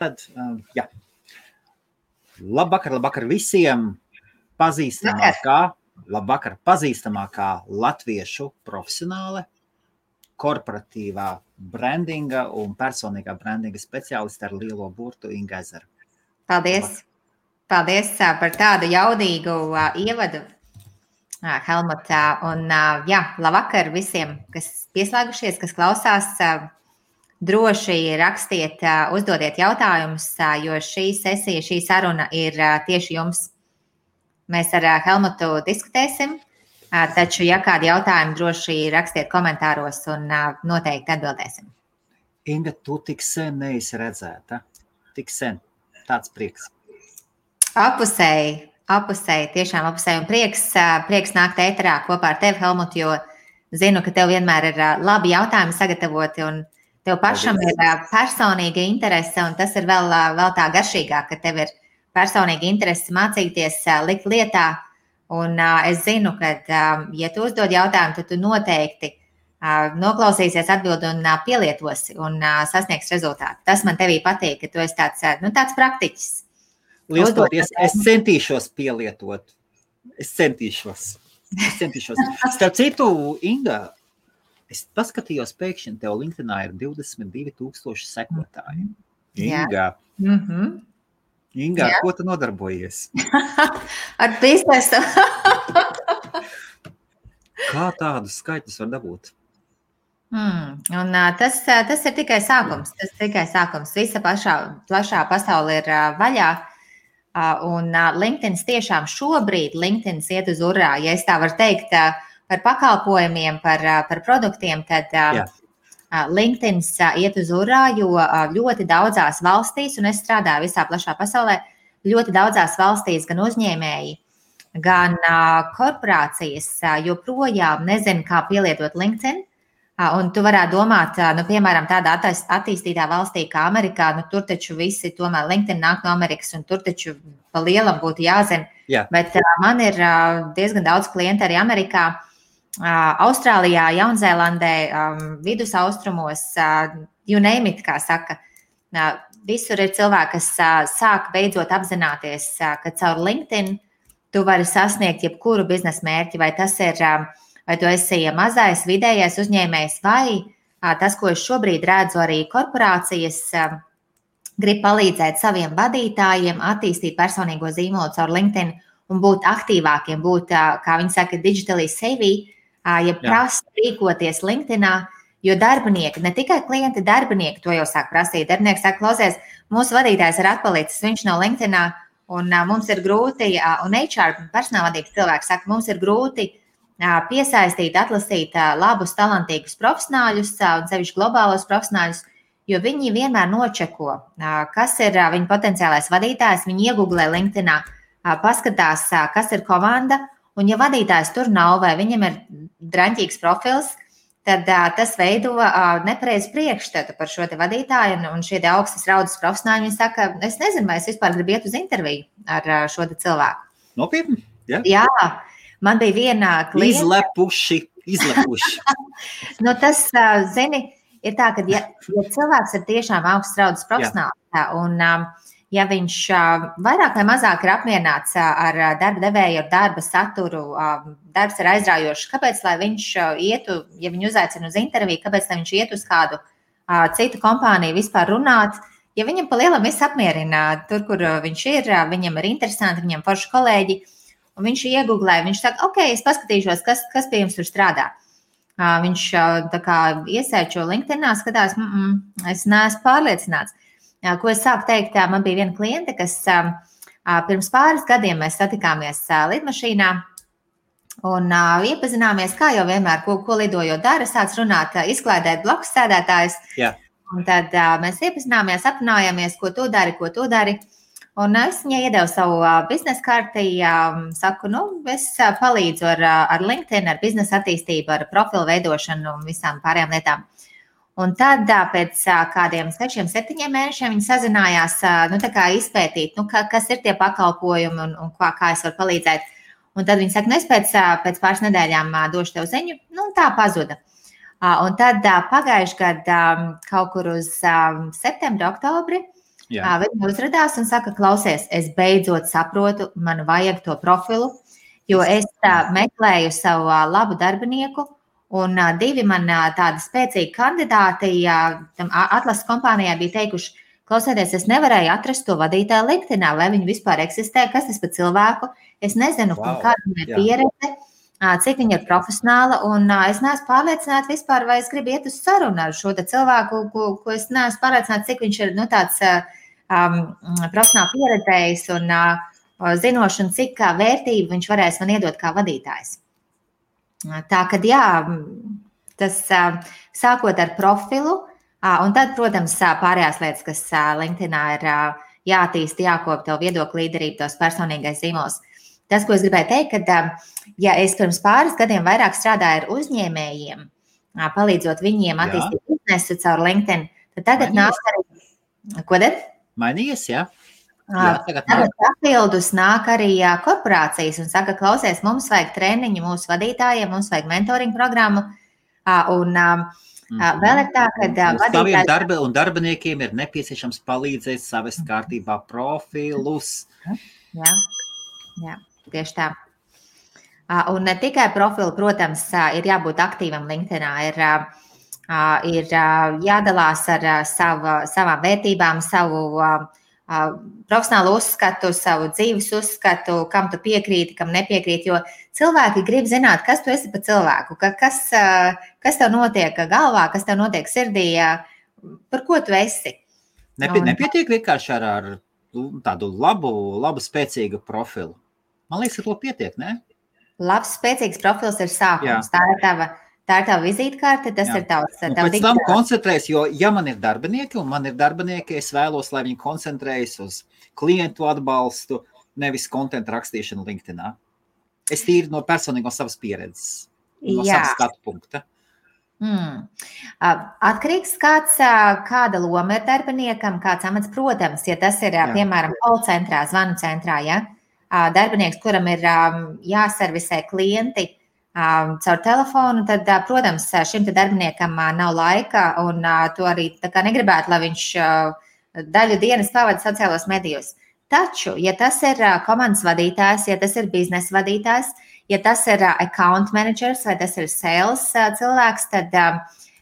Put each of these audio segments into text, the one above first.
Tad, jā. Labvakar visiem pazīstamākā latviešu profesionāle, korporatīvā brandinga un personīgā brandinga speciāliste ar lielo burtu Inga Ezera. Paldies! Paldies par tādu jaudīgu ievadu, Helmut. Un labvakar visiem, kas pieslēgušies, kas klausās. Droši rakstiet, uzdodiet jautājumus, jo šī sesija, šī saruna ir tieši jums. Mēs ar Helmutu diskutēsim, taču, ja kādi jautājumi, droši rakstiet komentāros un noteikti atbildēsim. Inga, tu tik sen neesi redzēta. Tik sen. Tāds prieks. Apusēji, tiešām apusēji. Un prieks nākt ēterā kopā ar tevi, Helmut, jo zinu, ka tev vienmēr ir labi jautājumi sagatavoti un tev pašam ir personīga interese, un tas ir vēl tā garšīgāk, ka tev ir personīga interese mācīties, likt lietā. Un es zinu, ka, ja tu uzdod jautājumu, tad tu noteikti noklausīsies atbildi un pielietosi un sasniegs rezultātu. Tas man tevī patīk, ka tu esi tāds praktiķis. Liels paldies! Es centīšos pielietot. Es centīšos. Starp citu, Inga, es paskatījos pēkšņi, tev LinkedInā ir 22,000 sekotāji. Inga, Inga, ar ko tu nodarbojies? Ar biznesu. Kā tādus skaitļus var dabūt? Un tas ir tikai sākums. Visa plašā pasaule ir vaļā. Un LinkedIn tiešām šobrīd iet uz urā. Ja es tā varu teikt, par pakalpojumiem, par produktiem, tad LinkedIn iet uz urā, jo ļoti daudzās valstīs, un es strādāju visā plašā pasaulē, ļoti daudzās valstīs gan uzņēmēji, gan korporācijas joprojām nezina, kā pielietot LinkedIn. Un tu varētu domāt, piemēram, tādā attīstītā valstī kā Amerikā, tur taču visi tomēr LinkedIn nāk no Amerikas, un tur taču pa lielam būtu jāzina. Jā. Bet man ir diezgan daudz klientu arī Amerikā, Austrālijā, Jaunzēlandē, vidusaustrumos, you name it, kā saka. Visur ir cilvēki, kas sāk beidzot apzināties, ka caur LinkedIn tu vari sasniegt jebkuru biznesa mērķi, vai tas ir, vai tu esi mazais, vidējais uzņēmējs, vai tas, ko es šobrīd redzu, arī korporācijas grib palīdzēt saviem vadītājiem attīstīt personīgo zīmolu caur LinkedIn un būt aktīvākiem, būt, kā viņi saka, digitally savvy, ja prasa rīkoties LinkedInā, jo darbinieki, ne tikai klienti, darbinieki to jau sāk prasīt. Darbinieki saka, klausies, mūsu vadītājs ir atpalicis, viņš nav LinkedInā, un mums ir grūti, un HR personālvadības cilvēki saka, mums ir grūti piesaistīt, atlasīt labus, talantīgus profesionāļus, un sevišķi globālos profesionāļus, jo viņi vienmēr nočeko, kas ir viņa potenciālais vadītājs, viņi iegooglē LinkedInā, paskatās, kas ir komanda, un ja vadītājs tur nav vai viņam ir draņķīgs profils, tad tas veido nepareizu priekšstatu par šo te vadītāju, un šie te augstas raudas profesionāļi, viņi saka, es nezinu, vai es vispār gribu iet uz interviju ar šo te cilvēku. Nopietni? Jā, man bija viena klienta. Izlepuši. Tas, zini, ir tā, ka ja cilvēks ir tiešām augstas raudas profesionāls, un ja viņš vairāk vai mazāk ir apmierināts ar darba devēju, ar darba saturu, darbs ir aizraujošs, kāpēc, lai viņš ietu, ja viņu uzaicina uz interviju, kāpēc, lai viņš iet uz kādu citu kompāniju vispār runāt, ja viņam pa lielam viss apmierina tur, kur viņš ir, viņam ir interesanti, viņam forši kolēģi, un viņš iegooglē, viņš saka, ok, es paskatīšos, kas pie jums tur strādā. Viņš tā kā iesēčo LinkedInā, skatās, es neesmu pārliecināts. Ko es sāku teikt, man bija viena kliente, kas pirms pāris gadiem mēs satikāmies lidmašīnā un iepazināmies, kā jau vienmēr, ko lidojot dara, sāc runāt, izklaidēt blakus sēdētājus. Jā. Un tad mēs iepazināmies, aprunājāmies, ko tu dari. Un es viņai iedevu savu biznesa karti, saku, es palīdzu ar LinkedIn, ar biznesa attīstību, ar profilu veidošanu un visām pārējām lietām. Un tad pēc kādiem 6-7 mēnešiem viņi sazinājās, tā kā izpētīt, kas ir tie pakalpojumi un kā es varu palīdzēt. Un tad viņi saka, es pēc pāris nedēļām došu tev ziņu, un tā pazuda. Un tad pagājuši gadu kaut kur uz septembri, oktobri Viņa uzradās un saka, klausies, es beidzot saprotu, man vajag to profilu, jo es meklēju savu labu darbinieku, un 2 man tādi spēcīgi kandidāti tam atlases kompānijā bija teikuši, klausieties, es nevarēju atrast to vadītāju LinkedInā, vai viņi vispār eksistē, kas tas par cilvēku, es nezinu, kāda viņai ir pieredze, cik viņa ir profesionāla, un es neesmu pārliecināta vispār, vai es gribu iet uz sarunu ar šo cilvēku, ko es neesmu pārliecināta, cik viņš ir tāds profesionāli pieredzējis un zinoši, un cik vērtību viņš varēs man iedot kā vadītājs. Tā kad tas sākot ar profilu, un tad, protams, pārējās lietas, kas LinkedInā ir jātīst, jākop tev viedokļu līderību, tos personīgais zīmols. Tas, ko es gribēju teikt, ka ja es pirms pāris gadiem vairāk strādāju ar uzņēmējiem, palīdzot viņiem attīstīt biznesu caur LinkedIn, tad tagad nāk arī... Ko tad? Mainījies, jā? Tagad papildus nāk arī korporācijas un saka, klausies, mums vajag treniņu mūsu vadītājiem, mums vajag mentoring programmu, un vēl ir tā, ka vadītājiem un darbiniekiem ir nepieciešams palīdzēt savest kārtībā profilus. Jā, tieši tā. Un ne tikai profilu, protams, ir jābūt aktīvam LinkedInā, ir jādalās ar savām vērtībām, savu profesionālu uzskatu, savu dzīves uzskatu, kam tu piekrīti, kam nepiekrīti, jo cilvēki grib zināt, kas tu esi par cilvēku, kas tev notiek galvā, kas tev notiek sirdī, par ko tu esi. Nepietiek vienkārši ar tādu labu spēcīgu profilu. Man liekas, ka to pietiek, ne? Labs, spēcīgs profils ir sākums. Tā ir tava vizītkarte, tas ir tavs. Pēc tam koncentrējas, jo ja man ir darbinieki, es vēlos, lai viņi koncentrējas uz klientu atbalstu, nevis kontentu rakstīšanu LinkedInā. Es tīri no personīgo savas pieredzes, no savas skatu punkta. Atkarīgs kāda loma ir darbiniekam, kāds amats, protams, ja tas ir, piemēram, call centrā, zvanu centrā, darbinieks, kuram ir jāservisē klienti caur telefonu, tad, protams, šim darbiniekam nav laika un to arī tā kā negribētu, lai viņš daļu dienas pavada sociālos medijos. Taču, ja tas ir komandas vadītājs, ja tas ir biznesa vadītājs, ja tas ir account managers vai tas ir sales cilvēks, tad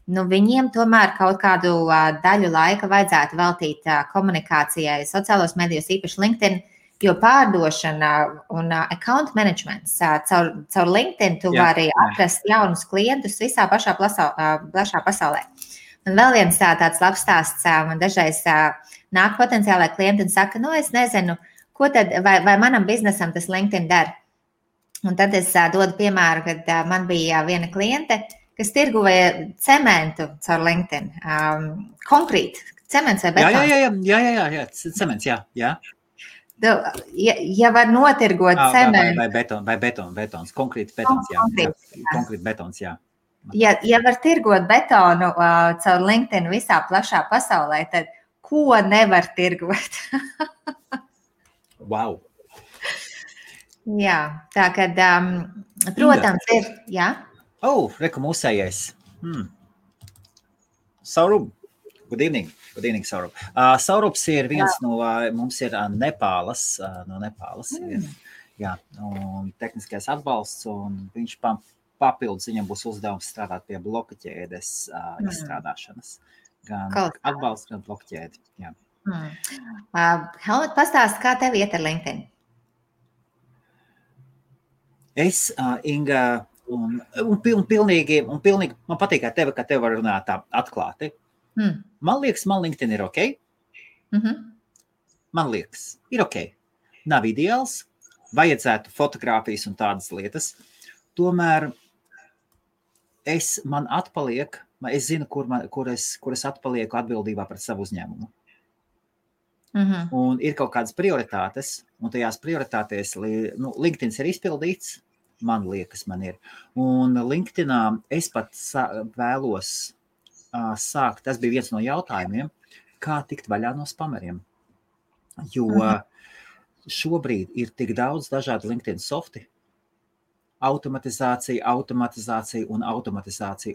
viņiem tomēr kaut kādu daļu laika vajadzētu veltīt komunikācijai sociālos medijos, īpaši LinkedIn, jo pārdošana un account managements caur LinkedIn tu vari atrast jaunus klientus visā plašā pasaulē. Un vēl viens tāds labs stāsts, man dažreiz nāk potenciālai klienti un saka, es nezinu, ko tad, vai manam biznesam tas LinkedIn dara. Un tad es dodu piemēru, kad man bija viena kliente, kas tirgoja cementu caur LinkedIn. Konkrēti, cements vai betons? Jā, cements, jā. Ja var notirgot cementu. Vai betons, konkrēti betons, jā. Konkrēti betons, jā. Ja var tirgot betonu caur LinkedIn visā plašā pasaulē, tad ko nevar tirgot? Wow. Jā, tā kad, protams, ir, jā. Reku mūsējais. Saurup. Good evening, Saurup. Saurups ir viens no, mums ir Nepālas, un tehniskais atbalsts, un viņš papildus, viņam būs uzdevums strādāt pie bloka ķēdes izstrādāšanas. Gan atbalsts, gan bloka ķēdi, jā. Helmut, pastāst, kā tev iet ar LinkedIn? Es, Inga, un pilnīgi, man patīk, ka tev var runāt tā atklāti. Man liekas, man LinkedIn ir ok. Man liekas, ir ok. Nav ideāls, vajadzētu fotogrāfijas un tādas lietas. Tomēr man atpaliek, es zinu, kur es atpalieku atbildībā pret savu uzņēmumu. Un ir kaut kādas prioritātes, un tajās prioritātēs LinkedIn ir izpildīts, man liekas, man ir. Un LinkedInā es pat vēlos sākt, tas bija viens no jautājumiem, kā tikt vaļā no spameriem. Jo šobrīd ir tik daudz dažādu LinkedIn softi, automatizācija,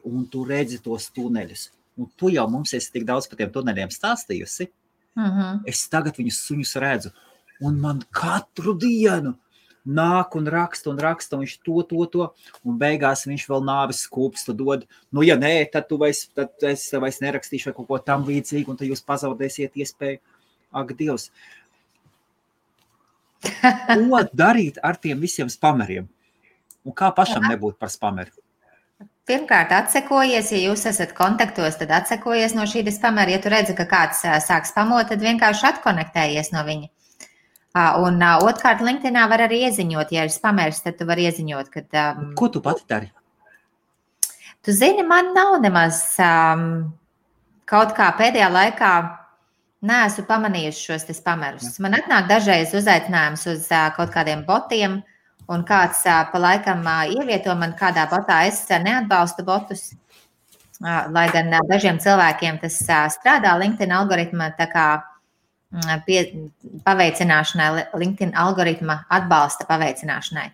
un tu redzi tos tuneļus. Un tu jau mums esi tik daudz par tiem tuneļiem stāstījusi, Es tagad viņus suņus redzu, un man katru dienu nāk un raksta, un viņš to, un beigās viņš vēl nāves skūpstu dod. Nu, ja nē, tad es vairs nerakstīšu vai kaut ko tam līdzīgu, un tad jūs pazaudēsiet iespēju. Ak, Dievs! Ko darīt ar tiem visiem spameriem? Un kā pašam nebūt par spameru? Pirmkārt, atsekojies, ja jūs esat kontaktos, tad atsekojies no šī spamera. Ja tu redzi, ka kāds sāk spamot, tad vienkārši atkonektējies no viņa. Un otrkārt, LinkedInā var arī ieziņot, ja ir spamers, tad tu vari ieziņot, kad... Ko tu pati dari? Tu zini, man nav nemaz kaut kā pēdējā laikā neesmu pamanījusi šos te spamerus. Man atnāk dažreiz uzaicinājums uz kaut kādiem botiem, un kāds pa laikam ievieto man kādā botā. Es neatbalstu botus, lai gan dažiem cilvēkiem tas strādā LinkedIn algoritma tā kā paveicināšanai, LinkedIn algoritma atbalsta paveicināšanai.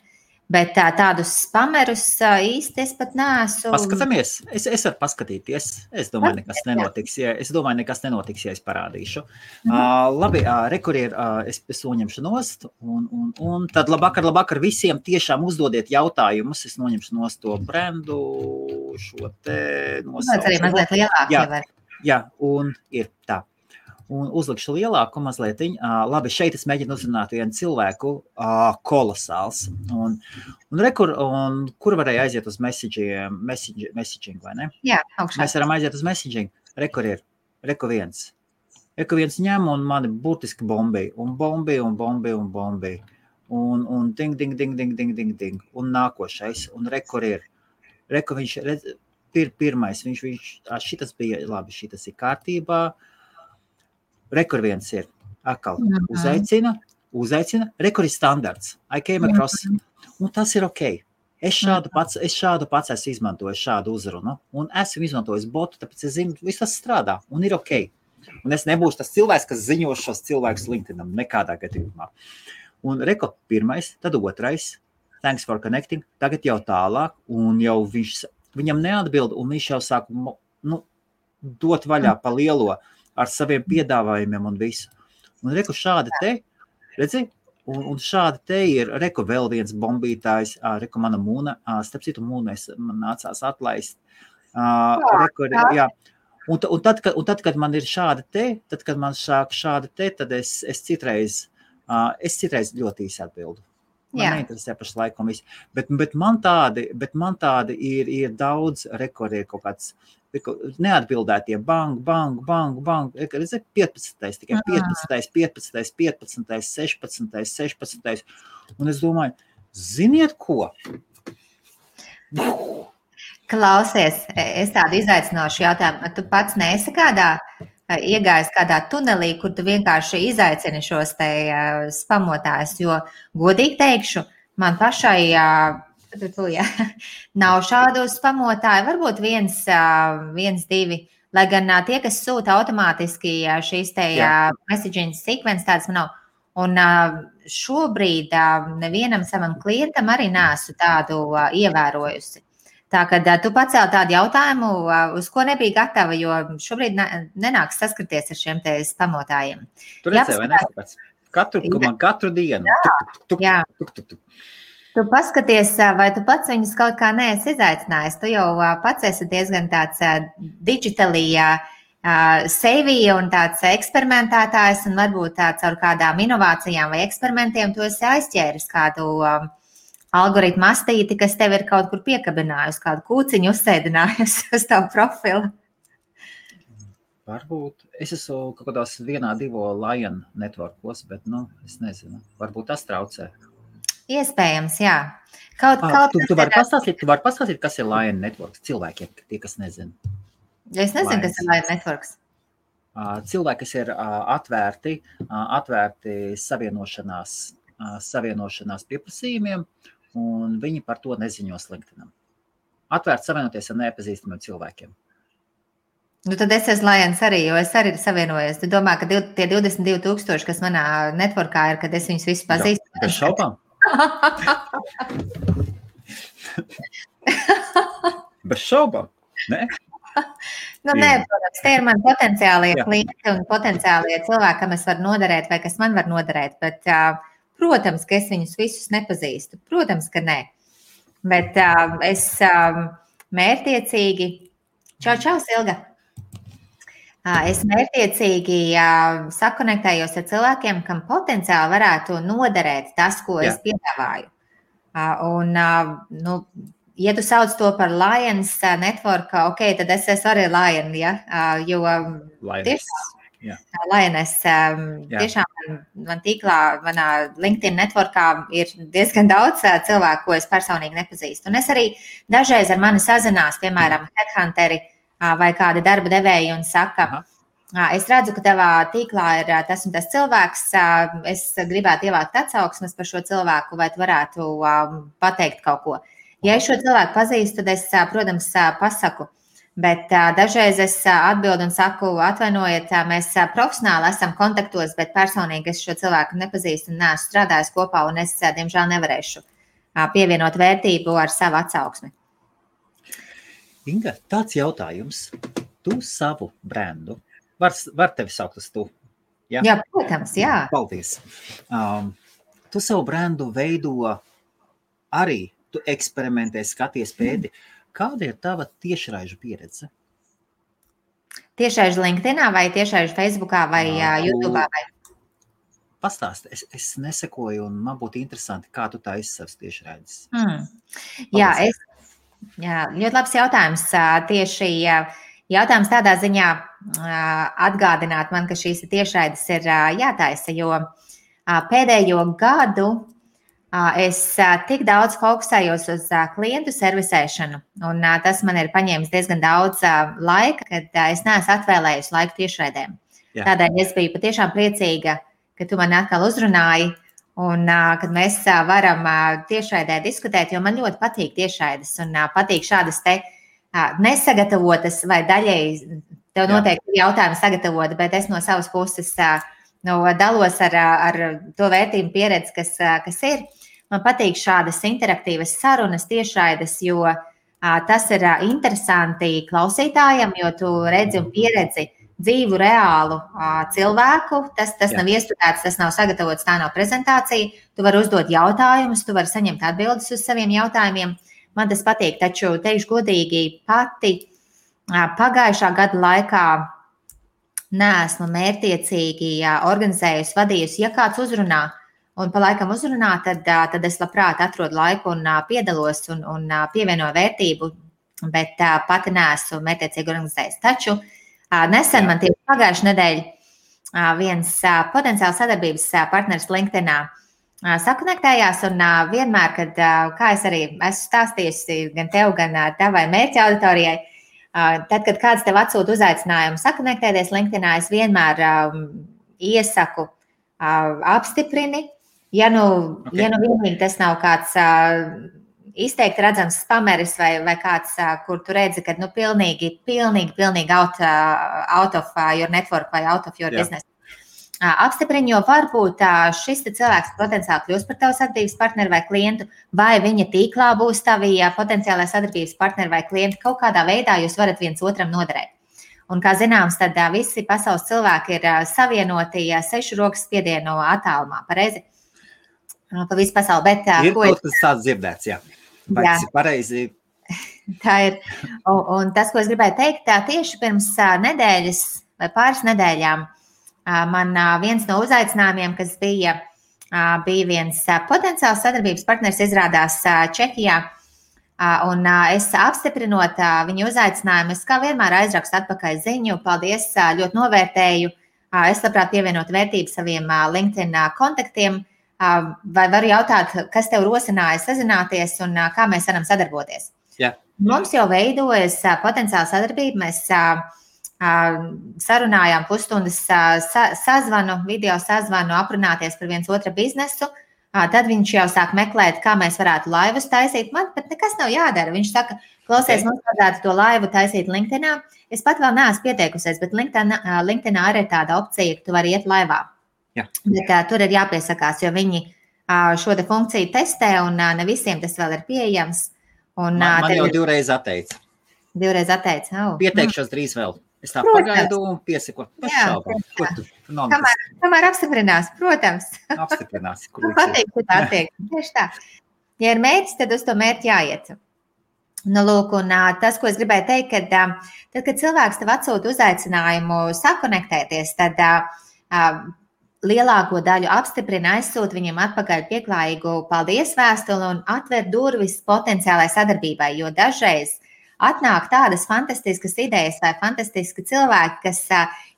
Bet tādus spamerus īsti es pat neesmu. Paskatāmies. Es varu paskatīties. Es domāju, nekas nenotiks, ja es parādīšu. Labi, rekurier, es noņemšu nost. Un tad labvakar visiem tiešām uzdodiet jautājumus. Es noņemšu nost to brendu, šo te nosaucu. Tas arī mazliet lielāk. Jā, un ir tā. Un uzlikšu lielāku mazlietiņu. Labi, šeit es mēģinu uzrunāt vienu cilvēku, kolosāls. Un kur varēja aiziet uz messaging, vai ne? Jā, augšā. Mēs varam aiziet uz messaging. Reku viens ņem un mani burtiski bombēja. Un bombēja. Un ding. Un nākošais. Un reku viņš, pirmais, šitas bija, labi, šitas ir kārtībā. Rekur viens ir atkal uzaicina, rekur ir standarts. I came across, un tas ir ok. Es šādu pats esmu izmantojis šādu uzrunu, un esmu izmantojis botu, tāpēc es zinu, viss tas strādā, un ir ok. Un es nebūšu tas cilvēks, kas ziņo šos cilvēkus LinkedInam, nekādā gadījumā. Un rekur pirmais, tad otrais, thanks for connecting, tagad jau tālāk, un jau viņam neatbild, un viņš jau sāk dot vaļā pa lielo, ar saviem piedāvājumiem un visu. Un reku šādi te, redzi, un šādi te ir, reku vēl viens bombītājs, reku mana mūna, starp citu mūna man nācās atlaist. Jā. Un tad, kad man ir šādi te, tad, kad man sāk šādi te, tad es citreiz ļoti īsi atbildu. Man neinteresē pašlaik un viss. Bet man tādi ir daudz, reku ir kaut kāds, neatbildētie bang, 15, tikai 15, 16. Un es domāju, ziniet ko? Klausies, es tādu izaicinošu jautājumu. Tu pats neesi iegājis kādā tunelī, kur tu vienkārši izaicini šos te spamotājus, jo godīgi teikšu, man pašai nav šādu spamotāju, varbūt viens, divi, lai gan tie, kas sūta automātiski šīs te messaging sequence, tādas man nav. Un šobrīd nevienam savam klientam arī neesmu tādu ievērojusi. Tā, kad tu pacēli tādu jautājumu, uz ko nebija gatava, jo šobrīd nenāks saskarties ar šiem te spamotājiem. Tu redzēji, vai neskatās? Katru dienu. Jā. Tu paskaties, vai tu pats viņus kaut kā neesi izaicinājis. Tu jau pats esi diezgan tāds digitally savvy un tāds eksperimentētājs, un varbūt caur kādām inovācijām vai eksperimentiem tu esi aizķēris kādu algoritmu astīti, kas tev ir kaut kur piekabinājusi, kādu kūciņu uzsēdinājusi uz tavu profilu. Varbūt. Es esmu kaut kādās 1-2 Lion networkos, bet, es nezinu. Varbūt tas traucē. Iespējams, jā. Tu vari pastāstīt, kas ir Lion networks cilvēkiem, tie, kas nezina. Es nezinu, kas ir Lion networks. Cilvēki, kas ir atvērti savienošanās pieprasījumiem, un viņi par to neziņos LinkedInam. Atvērti savienoties ar nepazīstamiem cilvēkiem. Tad es esmu Lions arī, jo es arī savienojos. Tu domā, ka tie 22,000, kas manā networkā ir, kad es viņus visus pazīstu? Bez šaubām. Bez šaubām, ne? Nē, protams, tie ir mani potenciālie klienti un potenciālie cilvēki, kam es varu noderēt vai kas man var noderēt, bet, protams, ka es viņus visus nepazīstu. Protams, ka nē. Bet es mērķiecīgi, čau, Silga! Es mērķiecīgi sakonektējos ar cilvēkiem, kam potenciāli varētu noderēt tas, ko es piedāvāju. Un, ja tu sauc to par Lions Network, ok, tad es esmu arī Lion, ja? Jo Lioness, tiešām man tīklā, manā LinkedIn networkā ir diezgan daudz cilvēku, ko es personīgi nepazīstu. Un es arī dažreiz ar mani sazinās, piemēram, headhunteri vai kādi darba devēji un saka, es redzu, ka tavā tīklā ir tas un tas cilvēks, es gribētu ievākt atsauksmes par šo cilvēku, vai tu varētu pateikt kaut ko. Ja es šo cilvēku pazīstu, tad es, protams, pasaku, bet dažreiz es atbildu un saku, atvainojiet, mēs profesionāli esam kontaktos, bet personīgi es šo cilvēku nepazīstu un neesmu strādājis kopā, un es, diemžēl, nevarēšu pievienot vērtību ar savu atsauksmi. Inga, tāds jautājums. Tu savu brendu, var tevi saukt uz tu? Ja? Jā, protams, jā. Paldies. Tu savu brendu veido arī, tu eksperimentē, skaties pēdi. Kāda ir tava tiešraižu pieredze? Tiešraižu LinkedInā vai tiešraižu Facebookā vai YouTube'ā? Pastāsti, es nesekoju un man būtu interesanti, kā tu tā savas tiešraides. Jā, ļoti labs jautājums. Tieši jautājums tādā ziņā atgādināt man, ka šīs tiešraides ir jātaisa, jo pēdējo gadu es tik daudz fokusējos uz klientu servisēšanu, un tas man ir paņēmis diezgan daudz laika, kad es neesmu atvēlējusi laiku tiešraidēm. Tādēļ es biju patiešām priecīga, ka tu mani atkal uzrunāji, un kad mēs varam tiešraidē diskutēt, jo man ļoti patīk tiešraides, un patīk šādas te nesagatavotas vai daļēji, tev noteikti jautājumi sagatavot, bet es no savas puses dalos ar to vērtību pieredzi, kas ir. Man patīk šādas interaktīvas sarunas tiešraides, jo tas ir interesanti klausītājam, jo tu redzi un pieredzi dzīvu, reālu cilvēku. Tas nav iestudēts, tas nav sagatavots, tā nav prezentācija. Tu vari uzdot jautājumus, tu vari saņemt atbildes uz saviem jautājumiem. Man tas patīk, taču teikšu godīgi, pati pagājušā gada laikā neesmu mērķiecīgi organizējusi, vadījusi. Ja kāds uzrunā un pa laikam uzrunā, tad es labprāt atrodu laiku un piedalos un pievienoju vērtību, bet pati neesmu mērķiecīgi organizējusi. Taču nesen man tieši pagājušajā nedēļā viens potenciāls sadarbības partneris LinkedInā sakonektējās, un vienmēr, kad, kā es arī esmu stāstījusi gan tev, gan tavai mērķa auditorijai, tad, kad kāds tev atsūta uzaicinājumu sakonektēties LinkedInā, es vienmēr iesaku apstiprini. Ja nu vienīgi tas nav kāds izteikti redzams spameris vai kāds, kur tu redzi, ka pilnīgi out of your network vai out of your business. Apstiprini, jo varbūt šis cilvēks potenciāli kļūs par tavu sadarbības partneri vai klientu, vai viņa tīklā būs tavi potenciālai sadarbības partneri vai klienti. Kaut kādā veidā jūs varat viens otram noderēt. Un, kā zināms, tad visi pasaules cilvēki ir savienoti 6 rokas spiedienu attālumā, pareizi? Pa visu pasauli. Bet, ir kaut kas tāds dzirdēts, jā. Vai tas ir pareizi? Tā ir. Un tas, ko es gribēju teikt, tieši pirms nedēļas vai pāris nedēļām man viens no uzaicinājumiem, kas bija viens potenciāls sadarbības partners, izrādās Čehijā. Un es apstiprinot viņu uzaicinājumu, es kā vienmēr aizrakstu atpakaļ ziņu. Paldies, ļoti novērtēju. Es labprāt pievienot vērtību saviem LinkedIn kontaktiem. Vai varu jautāt, kas tev rosināja sazināties un kā mēs varam sadarboties? Jā. Mums jau veidojas potenciāla sadarbība. Mēs sarunājām pusstundas sazvanu, video sazvanu, aprunāties par viens otra biznesu. Tad viņš jau sāk meklēt, kā mēs varētu laivus taisīt. Man pat nekas nav jādara. Viņš saka, klausies, mums vajadzētu to laivu taisīt LinkedInā. Es pat vēl neesmu pieteikusies, bet LinkedInā arī ir tāda opcija, ka tu vari iet laivā. Jā. Bet tur ir jāpiesakās, jo viņi šo te funkciju testē un ne visiem tas vēl ir pieejams. Un, man jau 2 reizes atteica. Divreiz atteici. Pieteikšos drīz vēl. Es tā Protams. pagaidu un piesako. Pašaubām. Ko tu? Kamēr apstiprinās, protams. Apstiprinās. Patīk, ka tā tiek. Tieši tā. Ja ir mērķis, tad uz to mērķi jāiet. Nu, lūk, un tas, ko es gribēju teikt, tad, kad cilvēks tev atsūta uzaicinājumu sakonektēties, tad lielāko daļu apstiprina, aizsūta viņam atpakaļ pieklājīgu paldies vēstuli un atver durvis potenciālai sadarbībai, jo dažreiz atnāk tādas fantastiskas idejas vai fantastiski cilvēki, kas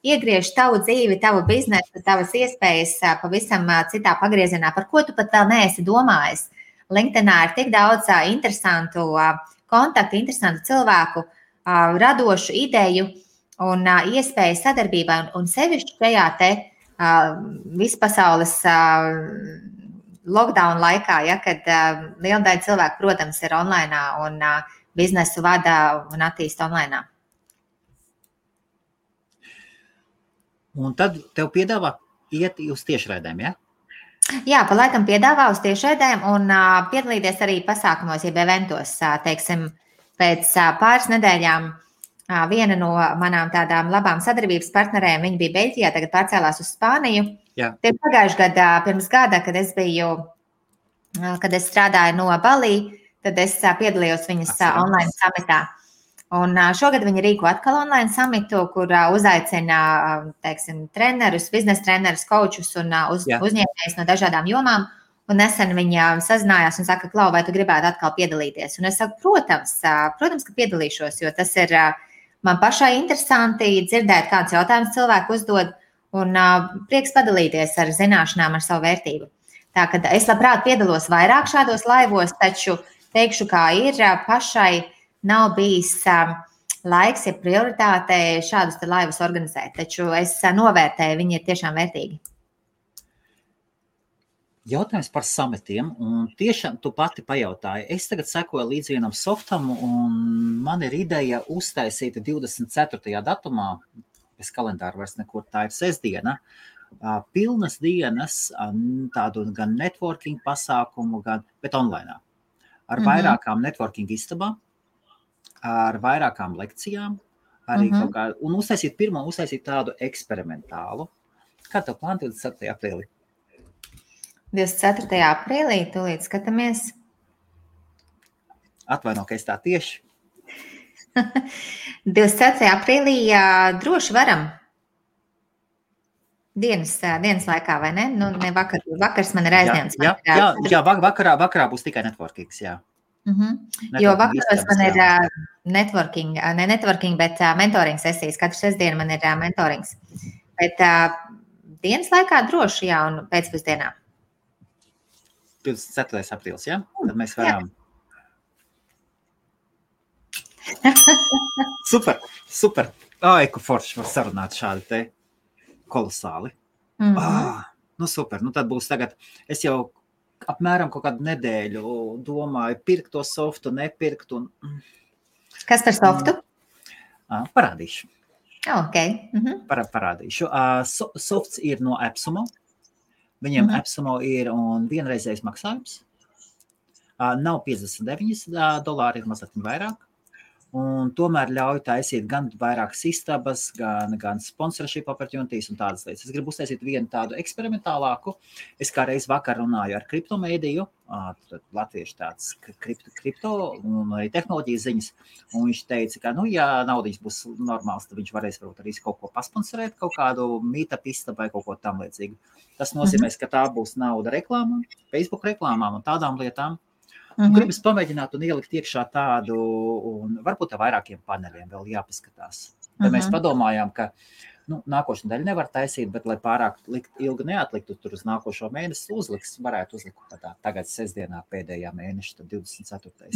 iegriež tavu dzīvi, tavu biznesu, tavas iespējas pavisam citā pagriezienā, par ko tu pat vēl neesi domājis. LinkedInā ir tik daudz interesantu kontaktu, interesantu cilvēku, radošu ideju un iespēju sadarbībai, un sevišķi šajā te vispasaules lockdown laikā, ja, kad liela daļa cilvēku, protams, ir online un biznesu vada un attīsta online. Un tad tev piedāvā iet uz tiešraidēm, ja? Jā, pa laikam piedāvā uz tiešraidēm un piedalīties arī pasākumos, jeb eventos. Teiksim, pēc pāris nedēļām viena no manām tādām labām sadarbības partnerēm, viņa bija Beļģijā, tagad pārcēlās uz Spāniju. Jā. Tie pagājuši gadā, pirms gada, kad es strādāju no Balī, tad es piedalījos viņas online samitā. Un šogad viņi rīko atkal online samitu, kur uzaicina, teiksim, trenerus, biznesa trenerus, kočus un uzņēmējus no dažādām jomām. Un nesen viņa sazinājās un saka, Klau, vai tu gribētu atkal piedalīties? Un es saku, protams, ka piedalīšos, jo tas ir man pašai interesanti dzirdēt, kādus jautājumus cilvēku uzdod un prieks padalīties ar zināšanām, ar savu vērtību. Tā, kad es labprāt piedalos vairāk šādos laivos, taču teikšu, kā ir pašai nav bijis laiks, ja prioritāte šādus laivus organizēt, taču es novērtēju, viņi ir tiešām vērtīgi. Jautājums par samitiem, un tiešām tu pati pajautāji. Es tagad sekoju līdz vienam softam, un man ir ideja uztaisīt 24. datumā, bez kalendāra vairs nekur, tā ir sestdiena, pilnas dienas, tādu gan networking pasākumu, bet online. Ar vairākām networking istabām, ar vairākām lekcijām, arī kaut kā, un uztaisīt tādu eksperimentālu. Kā tev plāni 24. aprīlī? 24. aprīlī, tūlīt skatāmies. Atvaino, ka es tā tieši. 24. aprīlī droši varam. Dienas laikā, vai ne? Nu, ne vakars man ir aizņemts. Jā, vakarā būs tikai networkings, jā. Jo vakaros man ir networking, bet mentoring sesijas. Katru sestdienu man ir mentorings. Bet dienas laikā droši, jā, un pēcpusdienā. 24. aprīlis, jā? Tad mēs varam. Super. Ai, ko forši var sarunāt šādi te kolosāli. Nu super, nu tad būs tagad, es jau apmēram kaut kādu nedēļu domāju, pirkt to softu, nepirkt. Kas par softu? Parādīšu. Okay. Parādīšu. Softs ir no Epsumo. Viņiem Epsumo ir un vienreizējs maksājums. Nav $59, ir mazliet vairāk. Un tomēr ļauj taisīt gan vairākas istabas, gan sponsorship opportunities un tādas lietas. Es gribu uztaisīt vienu tādu eksperimentālāku. Es kā reiz vakar runāju ar kriptomēdiju, latviešu tāds kripto un arī tehnoloģijas ziņas, un viņš teica, ka, ja naudiņas būs normāls, tad viņš varēs varbūt arī kaut ko pasponsorēt, kaut kādu meetup istabu vai kaut ko tam līdzīgu. Tas nozīmēs, ka tā būs nauda reklāmām, Facebook reklāmām un tādām lietām. Gribas pamēģināt un ielikt iekšā tādu, un varbūt ar vairākiem paneļiem vēl jāpaskatās. Tad mēs padomājām, ka nākošu nedēļu nevar taisīt, bet lai pārāk ilgi neatliktu tur uz nākošo mēnesi, varētu uzlikt tagad sestdienā pēdējā mēneša, tad 24.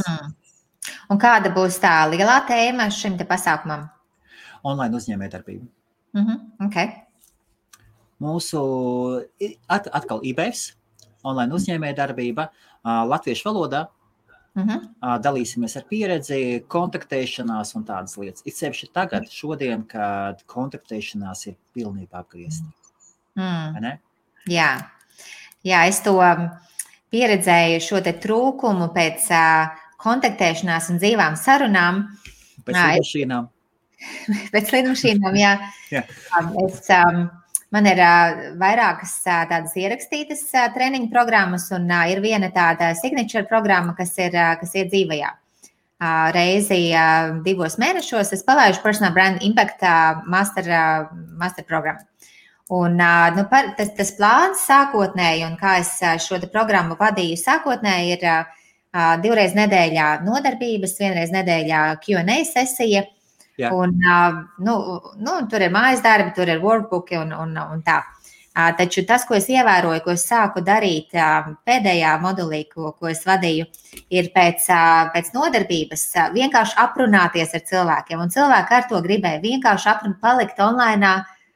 Un kāda būs tā lielā tēma šim te pasākumam? Online uzņēmējdarbība. Okay. Mūsu atkal IBFs, online uzņēmējdarbība, latviešu valodā. Dalīsimies ar pieredzi, kontaktēšanās un tādas lietas. It sevišķi tagad, šodien, kad kontaktēšanās ir pilnībā apgriezta. Jā, es to pieredzēju šo te trūkumu pēc kontaktēšanās un dzīvām sarunām. Pēc lidmašīnām. Pēc lidmašīnām, jā. Man ir vairākas tādas ierakstītas treniņu programmas, un ir viena tāda signature programma, kas ir dzīvajā. Reizi 2 mēnešos es palaidu Personal Brand Impact master programmu. Un tas plāns sākotnēji, un kā es šo programmu vadīju sākotnēji, ir 2 reizes nedēļā nodarbības, 1 reize nedēļā Q&A sesija. Jā. Un, tur ir mājas darbi, tur ir workbooki un tā. Taču tas, ko es ievēroju, ko es sāku darīt pēdējā modulī, ko es vadīju, ir pēc nodarbības vienkārši aprunāties ar cilvēkiem. Un cilvēki ar to gribēja vienkārši palikt online.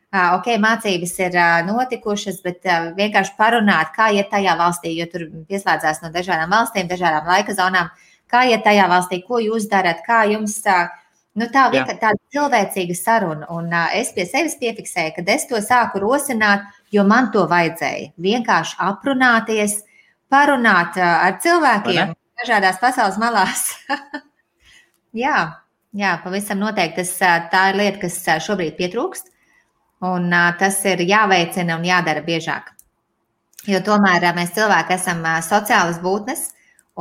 Mācības ir notikušas, bet vienkārši parunāt, kā iet tajā valstī, jo tur pieslēdzās no dažādām valstīm, dažādām laika zonām, kā iet tajā valstī, ko jūs darat, kā jums tāda cilvēcīga saruna. Un es pie sevis piefiksēju, kad es to sāku rosināt, jo man to vajadzēja. Vienkārši aprunāties, parunāt ar cilvēkiem dažādās pasaules malās. Jā, pavisam noteikti. Tā ir lieta, kas šobrīd pietrūkst. Un tas ir jāveicina un jādara biežāk. Jo tomēr mēs cilvēki esam sociālas būtnes,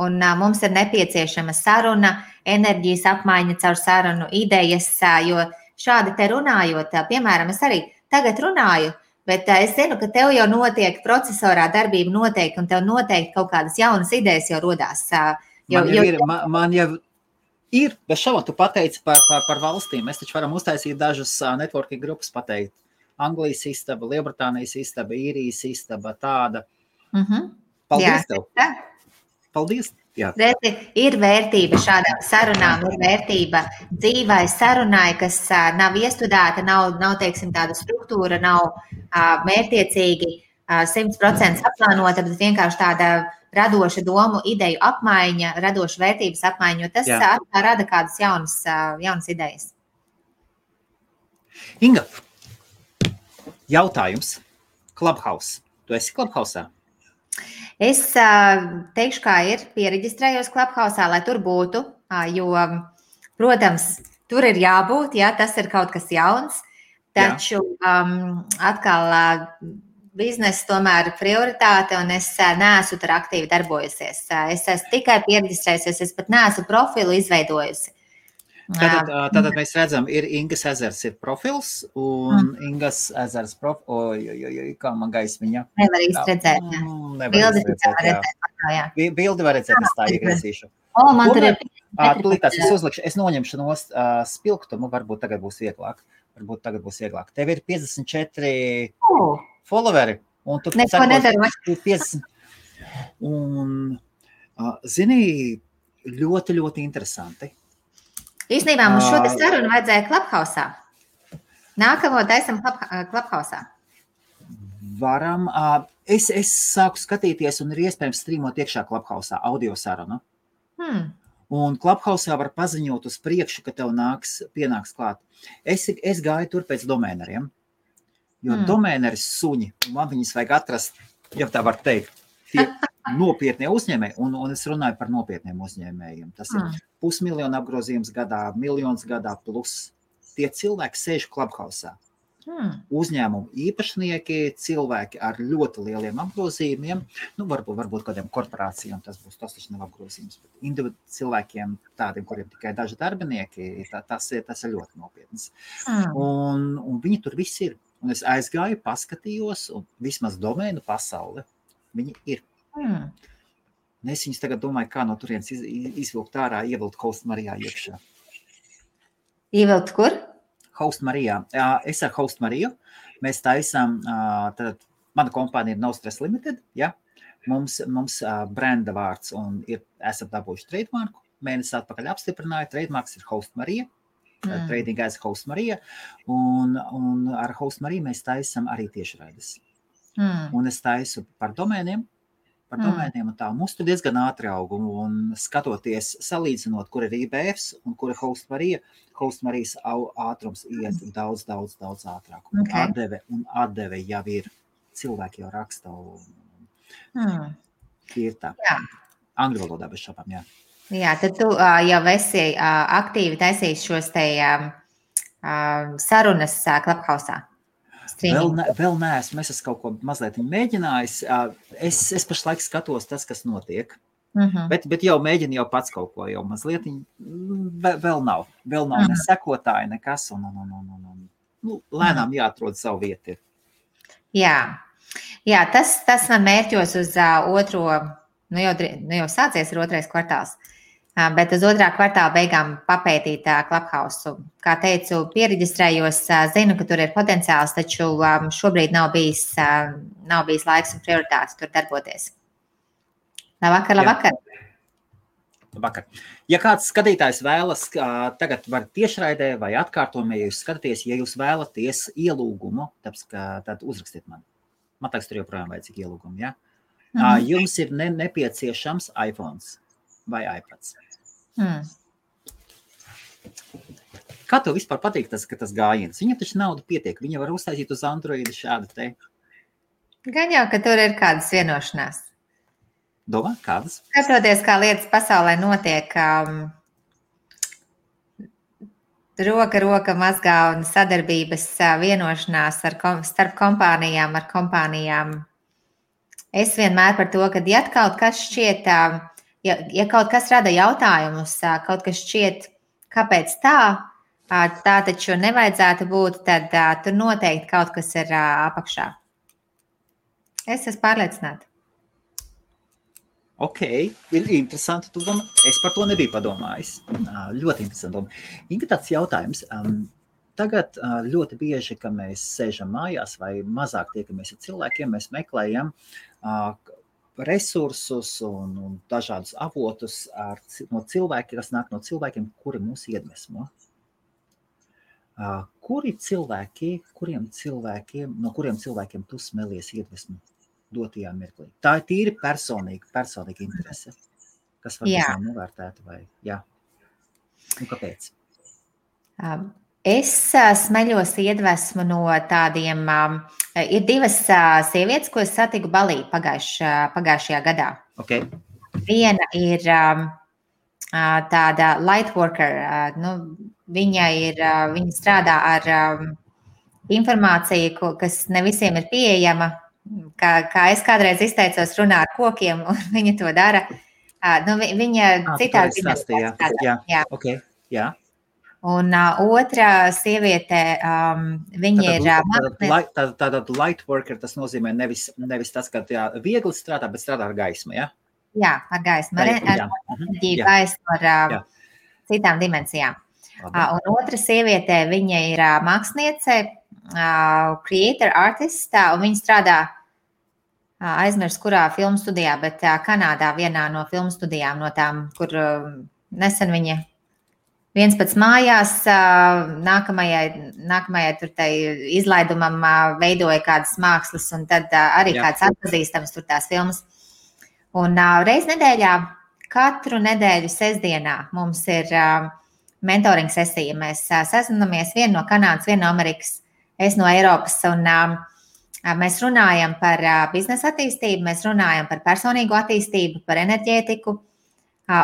un mums ir nepieciešama saruna, enerģijas apmaiņa caur sarunu, idejas, jo šādi te runājot, piemēram, es arī tagad runāju, bet es zinu, ka tev jau notiek procesorā darbība noteikti, un tev noteikti kaut kādas jaunas idejas jau rodās. Man jau ir, bez šaubām, tu pateici par valstīm. Mēs taču varam uztaisīt dažas networking grupas pateikt. Anglijas istaba, Lielbritānijas istaba, Īrijas istaba, tāda. Paldies tev. Paldies. Jā. Ir vērtība šādām sarunām, ir vērtība dzīvai sarunai, kas nav iestudēta, nav teiksim, tāda struktūra, nav mērķiecīgi 100% aplānota, bet vienkārši tāda radoša domu, ideju apmaiņa, radoša vērtības apmaiņa, jo tas rada kādas jaunas idejas. Inga, jautājums. Clubhouse. Tu esi Clubhouse'ā? Es teikšu, kā ir, piereģistrējos Clubhouse'ā, lai tur būtu, jo, protams, tur ir jābūt, ja tas ir kaut kas jauns, taču atkal biznesa tomēr prioritāte, un es neesmu tur aktīvi darbojusies. Es esmu tikai piereģistrējusies, es pat neesmu profilu izveidojusi. Tātad mēs redzam, ir Ingas ezers ir profils, un Ingas ezers kā man gaismiņa. Nevar īsti redzēt, Bildi var redzēt, es tā iegriezīšu. Man tur ir... Tulītās es uzlikšu, es noņemšu no spilgtumu, varbūt tagad būs vieglāk. Tev ir 54 followeri, un tu neko nedaru. 50. Un, zini, ļoti, ļoti interesanti. Īstenībā mums šo te sarunu vajadzēja Clubhouse'ā. Nākamo taisam Clubhouse'ā. Varam. Es sāku skatīties, un ir iespējams strīmot iekšā Clubhouse'ā audio sarunu. Un Clubhouse'ā var paziņot uz priekšu, ka tev pienāks klāt. Es gāju tur pēc domēneriem, jo domēneri suņi, man viņus vajag atrast, ja tā var teikt, tie nopietnie uzņēmēji, un es runāju par nopietniem uzņēmējiem. Tas ir 500 000 apgrozījums gadā, 1 miljons gadā plus. Tie cilvēki sēž Clubhouse'ā. Uzņēmumu īpašnieki, cilvēki ar ļoti lieliem apgrozījumiem, varbūt kādiem korporācijām tas taču nav apgrozījums, bet individuāli cilvēkiem, tādiem, kuriem tikai daži darbinieki, tas ir ļoti nopietnas. Un viņi tur viss ir. Un es aizgāju, paskatījos, un vismaz domēnu pasauli viņi ir. Es viņus tagad domāju, kā no turienes izvilkt ārā, ievilkt Host Marijā iekšā. Ievilkt kur? Host Marijā. Es ar Host Mariju. Mēs taisām, tad mana kompānija ir No Stress Limited, ja? Mums brenda vārds un esam dabūjuši trademarku. Mēnesi atpakaļ apstiprināju, trademarks ir Host Marija. Trading as Host Marija. Un ar Host Mariju mēs taisam arī tiešraides. Un es taisu par domēniem un tā. Mums tur diezgan ātri aug, un skatoties, salīdzinot, kur ir IBFs un kur ir Host Marija, Host Marijas ātrums iet daudz ātrāk. Un atdeve jau ir, cilvēki jau raksta. Ir tā. Angļu valodā bez šāpām, jā. Jā, tad tu jau esi aktīvi taisījis šos te sarunas Clubhouse-ā. Vēl neesmu, es kaut ko mazliet mēģinājis. Es pašlaik skatos tas, kas notiek. Bet jau mēģinu jau pats kaut ko, jau mazliet vēl nav ne sekotāji, nekas, un lēnām jāatrod savu vietu. Jā, tas man mērķos uz otro, jau sācies ir otrais kvartāls, bet uz otrā kvartāla beigām papētīt Clubhouse. Kā teicu, piereģistrējos, zinu, ka tur ir potenciāls, taču šobrīd nav bijis laiks un prioritātes tur darboties. Labvakar. Ja kāds skatītājs vēlas, tagad var tiešraidē vai atkārtojumā, ja jūs skatāties, ja jūs vēlaties ielūgumu, tad uzrakstiet man. Man liekas, tur joprojām vajadzīga ielūguma, ja? Jums ir nepieciešams iPhones vai iPads. Kā tev vispār patīk tas gājiens? Viņam taču nauda pietiek, viņa var uztaisīt uz Androida šādu te. Gan jau, ka tur ir kādas vienošanās. Domā, kādas? Skatoties, kā lietas pasaulē notiek, roka mazgā un sadarbības vienošanās starp kompānijām. Es vienmēr par to, ka ja kaut kas šķiet, ja kaut kas rada jautājumus, kaut kas šķiet, kāpēc tā taču nevajadzētu būt, tad tur noteikti kaut kas ir apakšā. Es esmu pārliecināta. Ok, ir interesanti. Es par to nebiju padomājis. Ļoti interesanti doma. Inga, tāds jautājums. Tagad ļoti bieži, kad mēs sēžam mājās vai mazāk tiekamies ar cilvēkiem, mēs meklējam resursus un dažādus avotus no cilvēkiem, kas nāk no cilvēkiem, kuri mūs iedvesmo. No kuriem cilvēkiem tu smelies iedvesmu dotajā mirklī? Tā ir tīri personīga interese, kas var būt novērtēta vai jā. Un kāpēc? Es smeļos iedvesmu no tādiem, ir divas sievietes, ko es satiku Balī pagājušajā gadā. Okay. Viena ir tāda light worker, viņa strādā ar informāciju, kas ne visiem ir pieejama. Kā es kādreiz izteicos, runā ar kokiem, un viņa to dara. Viņa citādi strādā. Okay. Jā. Un otra sieviete, viņa ir... Tātad light worker, tas nozīmē nevis tas, ka viegli strādā, bet strādā ar gaismu, ja? Jā, ar gaismu, ar enerģiju, gaismu, ar citām dimensijām. Un otra sieviete, viņa ir māksliniece, creator, artist, un viņa strādā aizmirst, kurā filmu studijā, bet Kanādā vienā no filmu studijām, no tām, kur nesen viņa viens pats mājās, nākamajai tur tai izlaidumam veidoja kādas mākslas, un tad arī kāds atpazīstams tur tās filmas. Un reiz nedēļā, katru nedēļu sestdienā mums ir mentoring sesija. Mēs sazinamies, viena no Kanādas, viena no Amerikas, es no Eiropas, un mēs runājam par biznesa attīstību, mēs runājam par personīgo attīstību, par enerģētiku,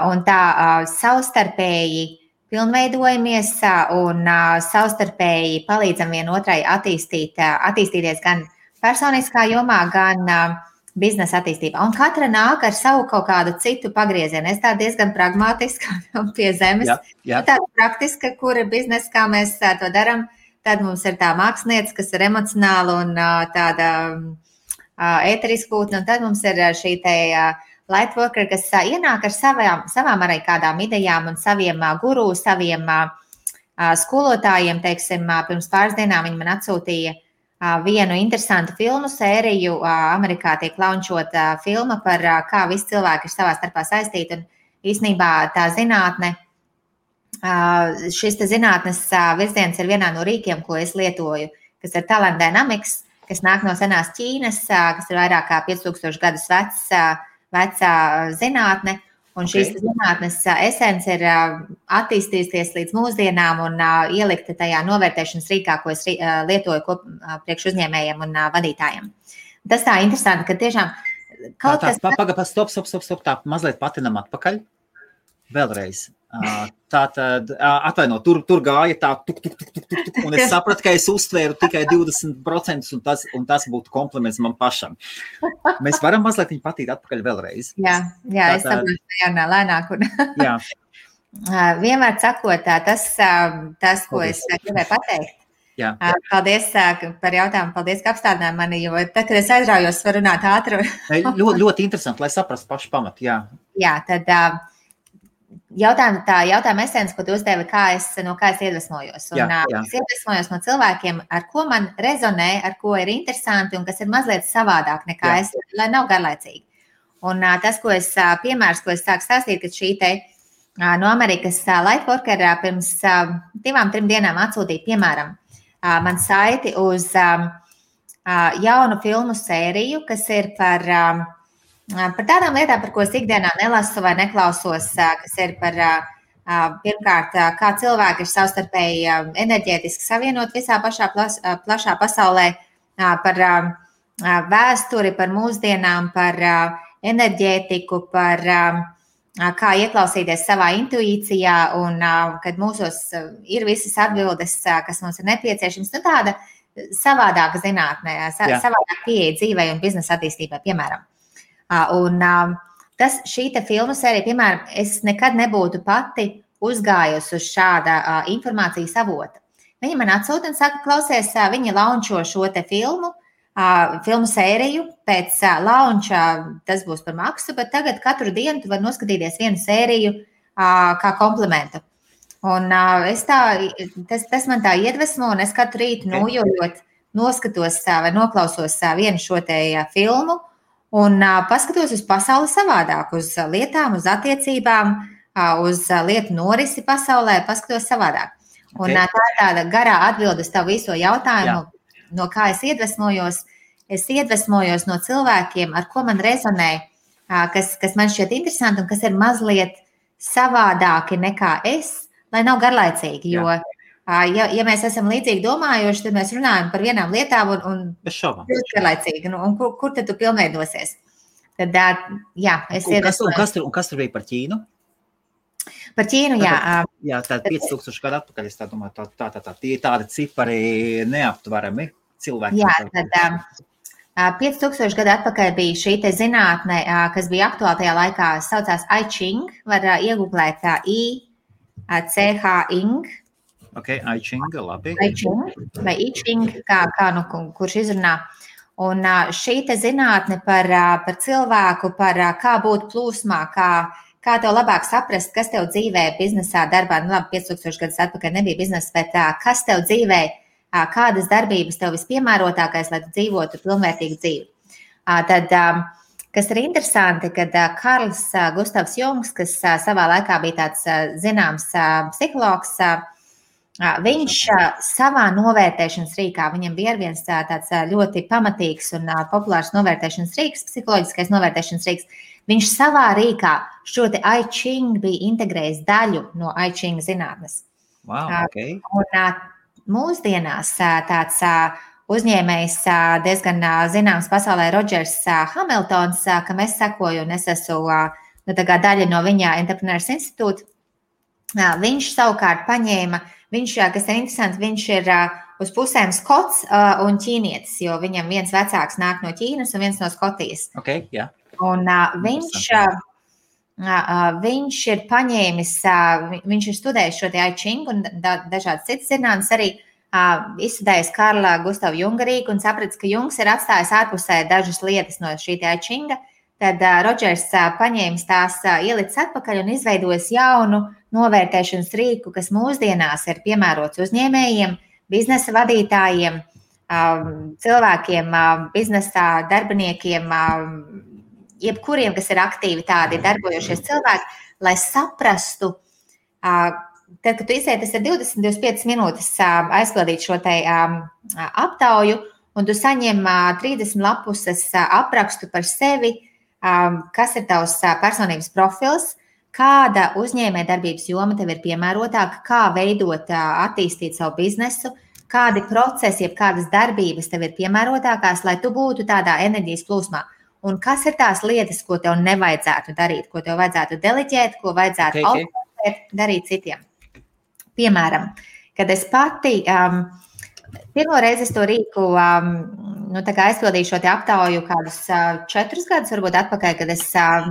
un tā savstarpēji pilnveidojamies un savstarpēji palīdzam vienotrai attīstīties gan personiskā jomā, gan biznesa attīstībā. Un katra nāk ar savu kaut kādu citu pagriezienu. Es tā diezgan pragmatiska un pie zemes. Jā. Tāda praktiska, kura biznesa, kā mēs to darām. Tad mums ir tā mākslinieca, kas ir emocionāla un tāda ēteriska būtne. Un tad mums ir šī te light worker, kas ienāk ar savām arī kādām idejām un saviem guru, saviem skolotājiem. Teiksim, pirms pāris dienām viņi man atsūtīja vienu interesantu filmu sēriju. Amerikā tiek launčota filma par kā visi cilvēki ir savā starpā saistīti. Un īstenībā tā zinātne, šis zinātnes virziens ir vienā no rīkiem, ko es lietoju, kas ir Talent Dynamics, kas nāk no senās Ķīnas, kas ir vairāk kā 5000 gadus vecā zinātne. Un šīs zinātnes esence ir attīstījusies līdz mūsdienām un ielikta tajā novērtēšanas rīkā, ko es lietoju priekš uzņēmējiem un vadītājiem. Tas tā interesanti, ka tiešām kaut kas... Stop, tā mazliet patinam atpakaļ. Vēlreiz. Tātad, atvaino, tur gāja tā, un es sapratu, ka es uztvēru tikai 20%, un tas būtu kompliments man pašam. Mēs varam mazliet viņu patīt atpakaļ vēlreiz. Jā, es saprotu, jārunā lēnāk. Jā. Vienmēr sakot, tas, ko es gribēju pateikt. Jā. Paldies par jautājumu, paldies, ka apstādināji mani, jo tad, kad es aizraujos, varu runāt ātri. Ļoti interesanti, lai saprastu pašu pamatu, jā. Jā, tad jautājuma esence, ko tu uzdevi, no kā es iedvesmojos. Un es iedvesmojos no cilvēkiem, ar ko man rezonē, ar ko ir interesanti un kas ir mazliet savādāk nekā es, lai nav garlaicīgi. Un tas, piemērs, ko es sāku stāstīt, ka šī te no Amerikas Lightworker pirms 2-3 dienām atsūtīja, piemēram, man saiti uz jaunu filmu sēriju, kas ir par tādām lietām, par ko es ikdienā nelasu vai neklausos, kas ir par, pirmkārt, kā cilvēki ir savstarpēji enerģētiski savienot visā plašā pasaulē, par vēsturi, par mūsdienām, par enerģētiku, par kā ieklausīties savā intuīcijā un kad mūsos ir visas atbildes, kas mums ir nepieciešams. Nu, tāda savādāka zinātnē, savādāka pieeja dzīvei un biznesa attīstībai, piemēram. Un šī te filmu sērija, piemēram, es nekad nebūtu pati uzgājusi uz šāda informācijas avota. Viņa man atsūta un saka, klausies, viņa launčo šo te filmu sēriju, pēc launča tas būs par maksu, bet tagad katru dienu tu vari noskatīties vienu sēriju kā komplimentu. Un tas man tā iedvesmo, un es katru rītu nojojot noskatos vai noklausos vienu šo te filmu un paskatos uz pasauli savādāk, uz lietām, uz attiecībām, uz lietu norisi pasaulē, paskatos savādāk. Un tā ir tāda garā atbilde uz tavu viso jautājumu, no kā es iedvesmojos. Es iedvesmojos no cilvēkiem, ar ko man rezonē, kas man šķiet interesanti un kas ir mazliet savādāki nekā es, lai nav garlaicīgi. Jo, ja mēs esam līdzīgi domājoši, tad mēs runājam par vienām lietām un garlaicīgi. Un kur tad tu pilnveidosies? Tad, es iedvesmojos. Un kas tur bija par Ķīnu? Par Ķīnu, jā. Jā, tāda 5000 gadu atpakaļ, es tā domāju, tie tādi cipari neaptverami cilvēki. Jā, tad 5000 gadu atpakaļ bija šī te zinātne, kas bija aktuāla tajā laikā, saucās I Ching, var iegooglēt C-H-Ing. Ok, I Ching, labi. I Ching, vai I Ching, kurš izrunā. Un šī te zinātne par cilvēku, par kā būt plūsmā, kā tev labāk saprast, kas tev dzīvē, biznesā, darbā, 5000 gadus atpakaļ nebija biznesa, bet kas tev dzīvē, kādas darbības tev vispiemērotākais, lai tu dzīvotu pilnvērtīgu dzīvi. Tad, kas ir interesanti, kad Karls Gustavs Jungs, kas savā laikā bija tāds zināms psihologs, viņš savā novērtēšanas rīkā, viņam bija viens tāds ļoti pamatīgs un populārs novērtēšanas rīks, psiholoģiskais novērtēšanas rīks. Viņš savā rīkā šo te I Ching bija integrējis daļu no I Ching zinātnes. Wow, okay. Un mūsdienās tāds uzņēmējs diezgan zināms pasaulē Rodžers Hamiltons, kam es sekoju un es esmu daļa no viņa Entrepreneurs institūta. Viņš savukārt paņēma, kas ir interesanti, viņš ir uz pusēm skots un ķīnietis, jo viņam viens vecāks nāk no Ķīnas un viens no Skotijas. Okay, yeah. Un viņš ir paņēmis, viņš ir studējis šo te I Ching un dažādas citas zinātnes arī izstudējis Karla Gustava Junga rīku un sapratis, ka Jungs ir atstājis ārpusē dažas lietas no šī te I Chinga. Tad Rodžers paņēmis tās, ielicis atpakaļ un izveidojis jaunu novērtēšanas rīku, kas mūsdienās ir piemērots uzņēmējiem, biznesa vadītājiem, cilvēkiem, biznesā darbiniekiem, jebkuriem, kas ir aktīvi tādi darbojošies cilvēki, lai saprastu, tad, kad tu izēji, tas ir 20-25 minūtes aizpildīt šo te aptauju, un tu saņem 30 lapuses aprakstu par sevi, kas ir tavs personības profils, kāda uzņēmējdarbības joma tev ir piemērotāka, kā veidot, attīstīt savu biznesu, kādi procesi, jeb kādas darbības tev ir piemērotākās, lai tu būtu tādā enerģijas plūsmā. un kas ir tās lietas, ko tev nevajadzētu darīt, ko tev vajadzētu deleģēt, ko vajadzētu autorizēt, darīt citiem. Piemēram, kad es pati, pirmo reizi es to rīku, aizpildīju šo te aptauju kādus 4 gadus, varbūt atpakaļ, kad es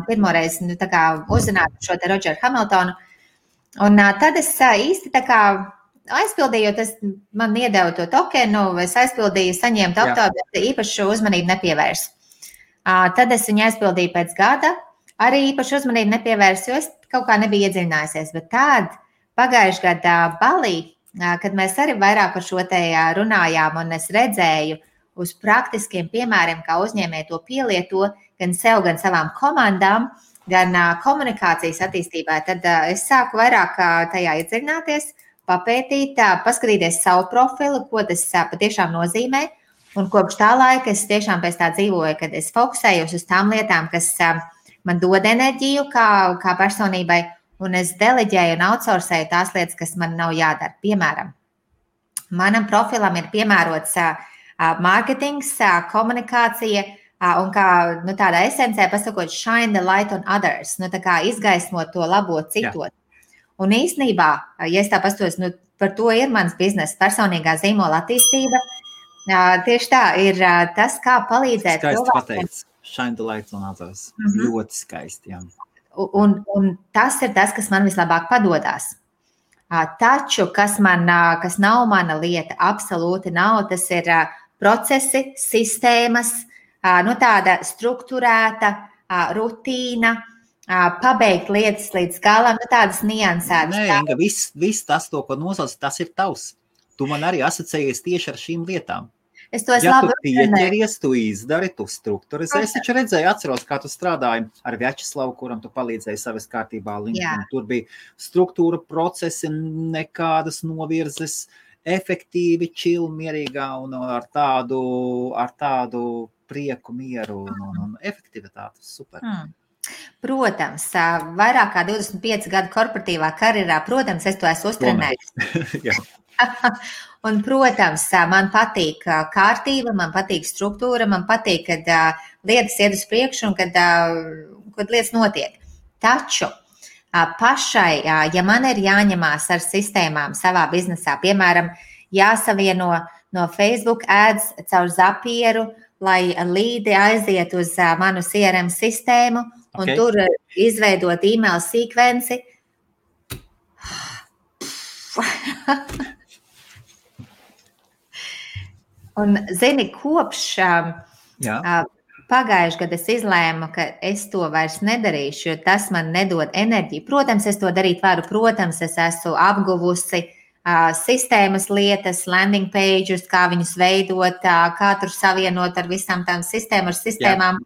pirmo reizi uzzināju šo te Rodžeru Hamiltonu. Un tad es īsti aizpildīju, jo tas man iedeva to tokenu, es aizpildīju, saņēmu aptauju, bet īpašu uzmanību nepievērsu. Tad es viņu aizpildīju pēc gada, arī īpašu uzmanību nepievērsu, jo es kaut kā nebiju iedziļinājusies. Bet tad pagājuši gada Balī, kad mēs arī vairāk par šo te runājām un es redzēju uz praktiskiem piemēriem, kā uzņēmēji to pielieto gan sev, gan savām komandām, gan komunikācijas attīstībā, tad es sāku vairāk tajā iedziļināties, papētīt, paskatīties savu profilu, ko tas patiešām nozīmē. Un kopš tā laika es tiešām pēc tā dzīvoju, kad es fokusējos uz tām lietām, kas man dod enerģiju kā personībai, un es deleģēju un outsourcēju tās lietas, kas man nav jādara. Piemēram, manam profilam ir piemērots mārketings, komunikācija, un kā tādā esencē pasakot, shine the light on others, izgaismot to labo citot. Un īstenībā, ja es tā pastos, par to ir mans bizness, personīgā zīmola attīstība. Tieši tā ir tas, kā palīdzēt cilvēkiem. Skaisti pateicis, shine the light on others. Ļoti skaisti, jā. Un tas ir tas, kas man vislabāk padodās. Taču, kas nav mana lieta, absolūti nav, tas ir procesi, sistēmas, tāda strukturēta rutīna, pabeigt lietas līdz galam, tādas niansētas. Nē, Inga, viss tas, ko nosauc, tas ir tavs. Tu man arī asociējies tieši ar šīm lietām. Ja tu pieķeries, tu izdari, tu strukturizē. Es taču redzēju, atceros, kā tu strādāji ar Vjačeslavu, kuram tu palīdzēji savas kārtībā LinkedIn. Tur bija struktūra, procesi, nekādas novirzes, efektīvi, chill, mierīgā un ar tādu prieku, mieru un efektivitāti. Super. Protams, vairāk kā 25 gadu korporatīvā karjerā, protams, es to esmu uztrenējis. Un, protams, man patīk kārtība, man patīk struktūra, man patīk, kad lietas iet uz priekšu un kad lietas notiek. Taču pašai, ja man ir jāņemās ar sistēmām savā biznesā, piemēram, jāsavieno no Facebook ads caur Zapieru, lai līdi aiziet uz manu CRM sistēmu un tur izveidot e-mail sekvenci. Un, zini, kopš pagājuši gadu es izlēmu, ka es to vairs nedarīšu, jo tas man nedod enerģiju. Protams, es to darīt varu, protams, es esmu apguvusi sistēmas lietas, landing pages, kā viņus veidot, kā tur savienot ar visām tām sistēmām,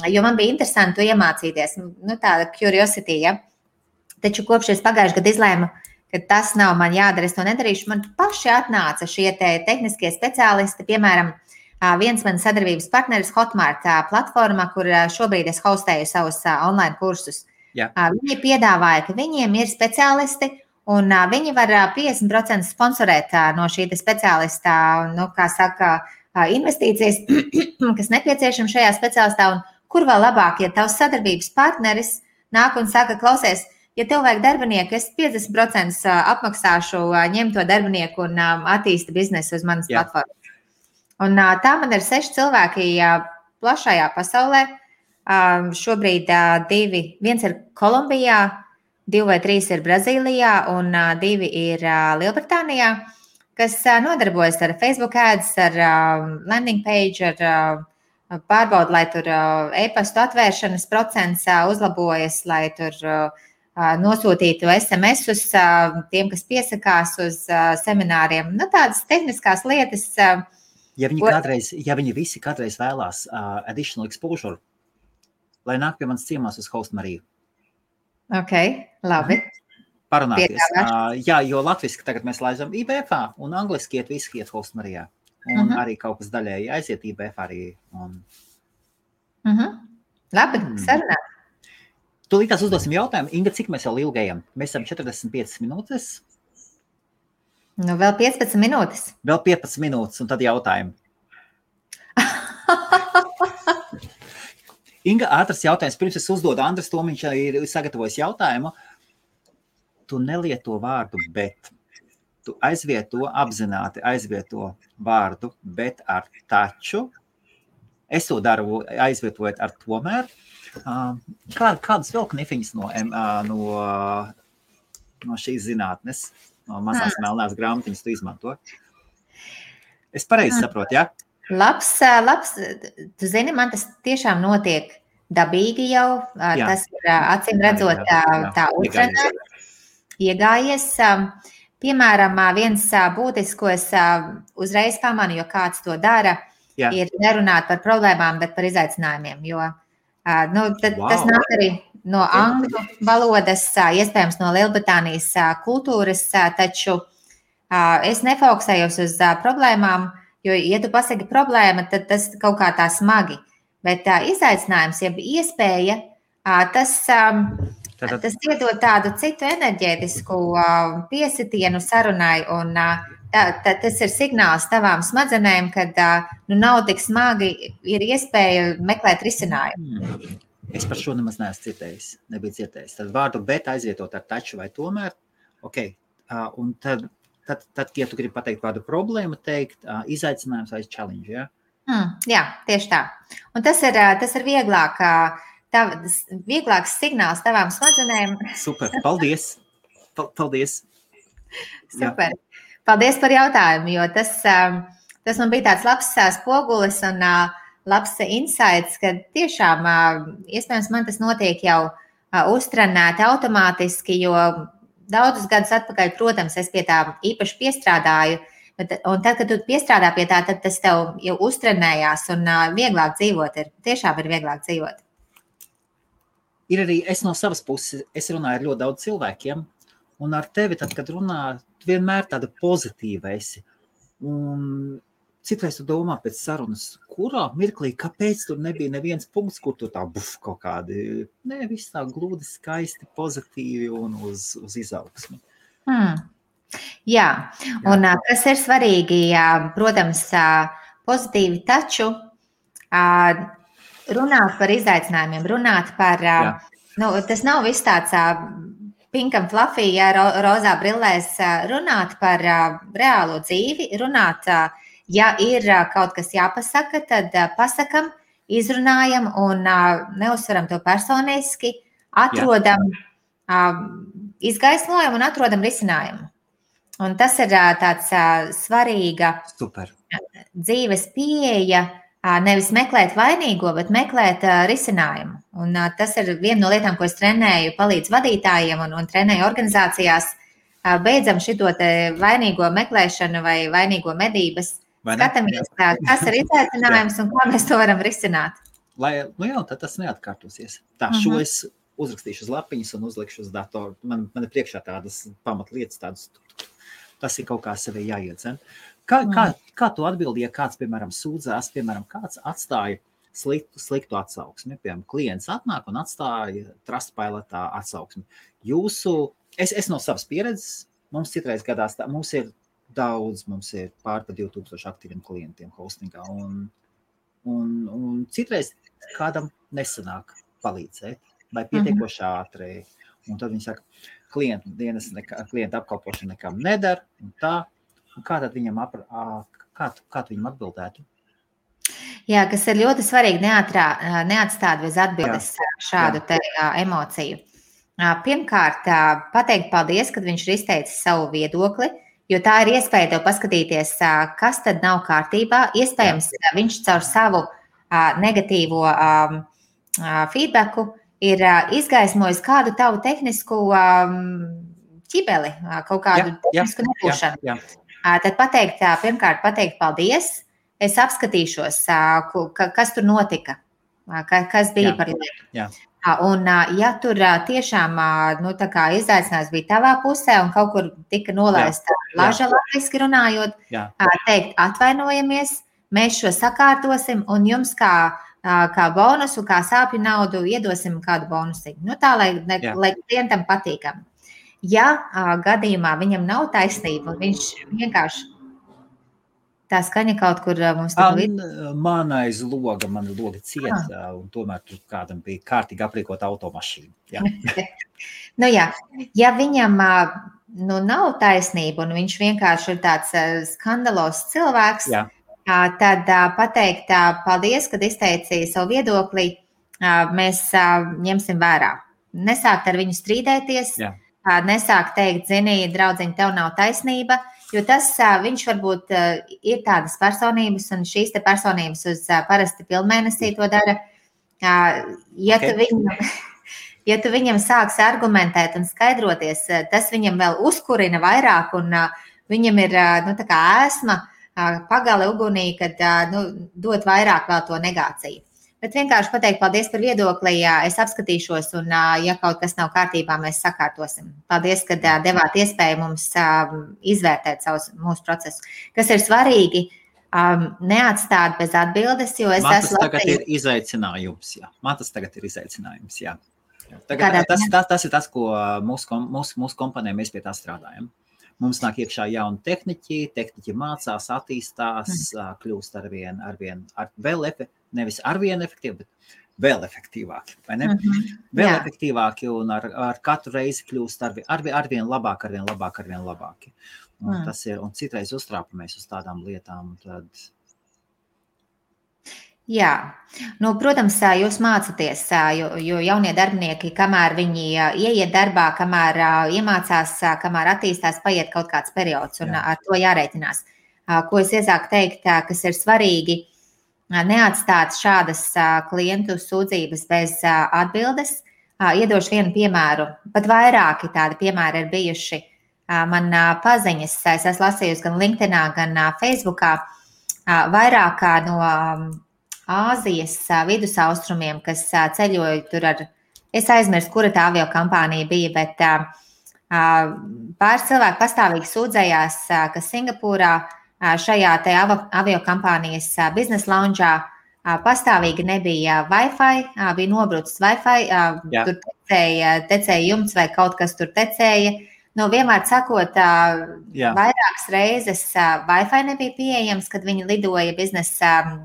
jo man bija interesanti to iemācīties, tāda curiosity, ja. Taču kopš es pagājuši gadu izlēmu, ka tas nav man jādara, es to nedarīšu. Man paši atnāca šie tehniskie speciālisti, piemēram, viens man sadarbības partneris Hotmart platformā, kur šobrīd es hostēju savus online kursus. Viņi piedāvāja, ka viņiem ir speciālisti, un viņi var 50% sponsorēt no šī speciālista, investīcijas, kas nepieciešama šajā speciālistā, un kur vēl labāk, ja tavs sadarbības partneris nāk un saka, klausies, ja tev vajag darbinieku, es 50% apmaksāšu, ņem to darbinieku un attīsti biznesu uz manas platformas. Un tā man ir 6 cilvēki plašajā pasaulē. Šobrīd 2, viens ir Kolumbijā, 2 vai 3 ir Brazīlijā un 2 ir Lielbritānijā, kas nodarbojas ar Facebook ads, ar landing page, ar pārbaudu, lai tur e-pastu atvēršanas procents uzlabojas, lai tur nosūtītu SMS-us tiem, kas piesakās uz semināriem. Tādas tehniskās lietas. Ja viņi visi kādreiz vēlās additional exposure, lai nāk pie manas ciemās uz Host Mariju. Ok, labi. Parunāties. Jā, jo latviski tagad mēs laizam IBF-ā un angliski visi iet Host Marijā. Un arī kaut kas daļēji aiziet IBF arī. Labi, sarunā. Tūlītās uzdosim jautājumu. Inga, cik mēs jau ilgi ejam? Mēs esam 45 minūtes. Vēl 15 minūtes. Vēl 15 minūtes, un tad jautājumi. Inga, ātrs jautājums. Pirms es uzdodu Andres Tomiņš ir sagatavojis jautājumu. Tu nelieto vārdu bet. Tu apzināti aizvieto vārdu bet ar taču. Es to daru aizvietojot ar tomēr. Kādas vēl knifiņas no šīs zinātnes, no mazās melnās grāmatiņas tu izmanto? Es pareizi saprotu, ja? Labs. Tu zini, man tas tiešām notiek dabīgi jau. Tas ir acīm redzot tā uzrunā iegājies. Piemēram, viens būtiskos uzreiz pamanu, jo kāds to dara, ir nerunāt par problēmām, bet par izaicinājumiem. Jo tas nāk arī no angļu valodas, iespējams no Lielbritānijas kultūras, taču es nefokusējos uz problēmām, jo, ja tu pasaki problēma, tad tas kaut kā tā smagi. Bet izaicinājums, ja iespēja, tas iedod tādu citu enerģētisku piesitienu sarunai, un tas ir signāls tavām smadzenēm, kad nav tik smagi, ir iespēja meklēt risinājumu. Es par šo nemaz neesmu nebiju dzirdējis. Tad vārdu bet aizvietot ar taču vai tomēr, un tad, ja tu gribi pateikt vārdu problēmu, teikt izaicinājums vai challenge, ja? Jā, tieši tā. Un tas ir vieglāks signāls tavām smadzenēm. Super, paldies. Paldies. Super. Jā. Paldies par jautājumu, jo tas man bija tāds labs spogulis un labs insights, ka tiešām iespējams man tas notiek jau uztrenēti automātiski, jo daudzus gadus atpakaļ, protams, es pie tā īpaši piestrādāju, un tad, kad tu piestrādā pie tā, tad tas tev jau uztrenējās un vieglāk dzīvot tiešām ir vieglāk dzīvot. Ir arī es no savas puses, es runāju ar ļoti daudz cilvēkiem, un ar tevi, tad, kad runā, tu vienmēr tāda pozitīva esi. Un citreiz tu domā pēc sarunas, kurā mirklī, kāpēc tur nebija neviens punkts, kur tu tā kaut kādi, viss tā glūdi, skaisti, pozitīvi un uz izaugsmi. Jā, un kas ir svarīgi, protams, pozitīvi, taču runāt par izaicinājumiem, runāt par, tas nav viss tāds pink and fluffy, rozā brillēs, runāt par reālo dzīvi, runāt, ja ir kaut kas jāpasaka, tad pasakam, izrunājam un neuzsveram to personiski, atrodam izgaismojumu un atrodam risinājumu. Un tas ir tāds svarīga dzīves pieeja, nevis meklēt vainīgo, bet meklēt risinājumu. Un tas ir viena no lietām, ko es trenēju, palīdzu vadītājiem un trenēju organizācijās. Beidzam šito te vainīgo meklēšanu vai vainīgo medības. Skatāmies, kas ir izaicinājums un kā mēs to varam risināt. Tad tas neatkārtosies. Šo es uzrakstīšu uz lapiņas un uzlikšu uz datoru. Man ir priekšā tādas pamatlietas, tādas. Tas ir kaut kā sevi jāiedzen. Kā tu atbildi, ja kāds, piemēram, sūdzās, piemēram, kāds atstāja sliktu atsauksmi? Piemēram, klients atnāk un atstāja Trustpilotā atsauksmi. Es no savas pieredzes, mums citreiz gadās tā, mums ir pār pa 2000 aktīviem klientiem hostingā, un citreiz kādam nesanāk palīdzēt, vai pietiekoši ātri. Un tad viņi saka, klienta apkalpošana nekam nedara, un tā. Un kā tad viņam atbildētu? Jā, kas ir ļoti svarīgi neatstāt bez atbildes šādu te emociju. Pirmkārt, pateikt paldies, kad viņš ir izteicis savu viedokli, jo tā ir iespēja tev paskatīties, kas tad nav kārtībā. Iespējams, viņš caur savu negatīvo feedbacku ir izgaismojis kādu tavu tehnisku ķibeli, kaut kādu tehnisku nebūšanu. Tad pirmkārt pateikt paldies, es apskatīšos, kas tur notika, kas bija par lietu. Un ja tur tiešām izaicinājums bija tavā pusē un kaut kur tika nolaista laža latviski runājot, teikt atvainojamies, mēs šo sakārtosim un jums kā bonusu, kā sāpju naudu iedosim kādu bonusiņu. Tā, lai klientam patīkam. Ja gadījumā viņam nav taisnība un viņš vienkārši Tā skaņa kaut kur mums tur Man aiz loga, man logi ciet, un tomēr tur kādam bija kārtīgi aprīkot automašīnu. Jā. Ja viņam nav taisnība un viņš vienkārši ir tāds skandalos cilvēks, tad pateikt paldies, kad izteicīja savu viedokli, mēs ņemsim vērā. Nesākt ar viņu strīdēties, nesākt teikt, zini, draudziņ, tev nav taisnība, jo tas viņš varbūt ir tādas personības, un šīs te personības uz parasti pilnmēnesī to dara. Ja tu viņam sāks argumentēt un skaidroties, tas viņam vēl uzkurina vairāk, un viņam ir tā kā ēsma, pagale ugunī, kad dot vairāk vēl to negāciju. Bet vienkārši pateikt paldies par viedokli, es apskatīšos, un ja kaut kas nav kārtībā, mēs sakārtosim. Paldies, ka devāt iespēju mums izvērtēt mūsu procesu. Kas ir svarīgi, neatstāt bez atbildes, jo es esmu... Man tas tagad ir izaicinājums, jā. Tas ir tas, ko mūsu kompanijā mēs pie tā strādājam. Mums nāk iekšā jauni tehniķi mācās, attīstās, kļūst arvien nevis arvien efektīvi, bet vēl efektīvāki, vai ne? Vēl efektīvāki un ar katru reizi kļūst arvien labāki. Un tas ir, un citreiz uztrāpamies uz tādām lietām, un tad... Jā, protams, jūs mācaties, jo jaunie darbinieki, kamēr viņi ieiet darbā, kamēr iemācās, kamēr attīstās, paiet kaut kāds periods, un ar to jārēķinās. Ko es iesāku teikt, kas ir svarīgi, neatstāt šādas klientu sūdzības bez atbildes. Iedošu vienu piemēru, pat vairāki tādi piemēri ir bijuši. Man paziņas, es esmu lasījusi gan LinkedInā, gan Facebookā, vairāk no Āzijas vidusaustrumiem, kas ceļoja tur es aizmirstu, kura tā avio kompānija bija, bet pāris cilvēki pastāvīgi sūdzējās, ka Singapūrā šajā te avio kompānijas biznesa loungeā pastāvīgi nebija Wi-Fi, bija nobrucis Wi-Fi, tur tecēja jumts vai kaut kas tur tecēja. Vienmēr sakot, vairākas reizes Wi-Fi nebija pieejams, kad viņi lidoja biznesa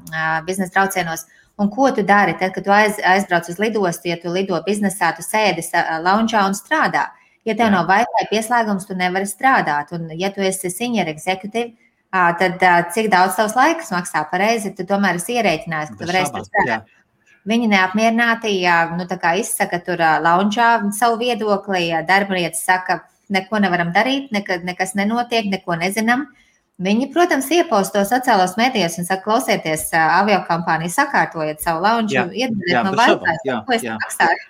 braucienos. Un ko tu dari? Tad, kad tu aizbrauc uz lidostu, ja tu lido biznesā, tu sēdi loungeā un strādā. Ja tev nav Wi-Fi pieslēgums, tu nevari strādāt. Un ja tu esi senior executive, tad cik daudz tavs laiks maksā pareizi, tu tomēr esi ierēķinājis, ka tu varēsi strādāt. Viņi neapmierināti, tā kā izsaka tur loungeā savu viedokli, darbinietis saka, neko nevaram darīt, nekas nenotiek, neko nezinām. Viņi, protams, ieposto sociālos medijos un saka, klausieties, aviokompānija, sakārtojiet savu lounge, iedodiet man Wi-Fi, ko es maksāju.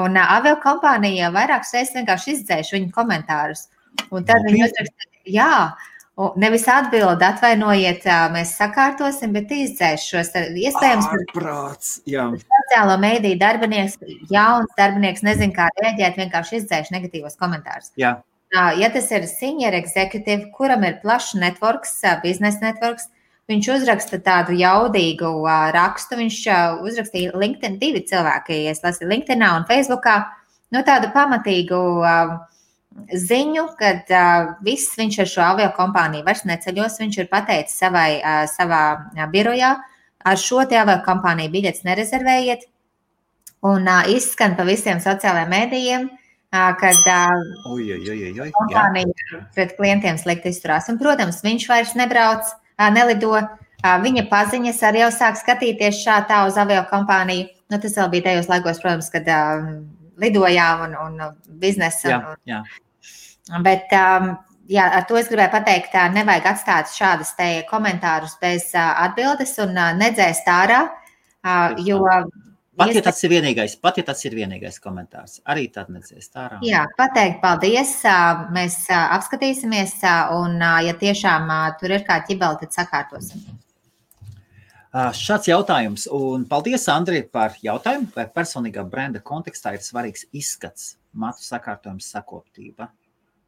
Un aviokompānija vairākas reizes vienkārši izdzēš viņu komentārus. Un tad viņi uzraksta, nevis atbild, atvainojiet, mēs sakārtosim, bet izdzēš šos iespējams. Ārprāts, sociālo mediju darbinieks, jauns darbinieks, nezin kā rēģēt, vienkārši izdzēš negatīvos komentārus. Jā. Ja tas ir senior executive, kuram ir plašs networks, biznesa networks, viņš uzraksta tādu jaudīgu rakstu, viņš uzrakstīja LinkedIn 2 cilvēki, es lasīju LinkedInā un Facebookā, tādu pamatīgu ziņu, kad viņš ar šo aviokompāniju vairs neceļos, viņš ir pateicis savā birojā, ar šo te aviokompāniju biļetes nerezervējiet, un izskan pa visiem sociālajiem mēdījiem, kad kompānija pret klientiem slikti izturās. Un, protams, viņš vairs nelido, viņa paziņas arī jau sāk skatīties tā uz aviokompāniju. Tas vēl bija tajos laikos, protams, kad lidojām un biznesa. Bet ar to es gribēju pateikt, nevajag atstāt šādas te komentārus bez atbildes un nedzēst ārā, jo... Pat ja tas ir vienīgais komentārs, arī tad nedzēst ārā. Jā, pateikt paldies, mēs apskatīsimies un, ja tiešām tur ir kā ķibeli, tad sakārtosim. Šāds jautājums, un paldies, Andri, par jautājumu, vai personīgā brenda kontekstā ir svarīgs izskats, matu sakārtojums, sakoptība.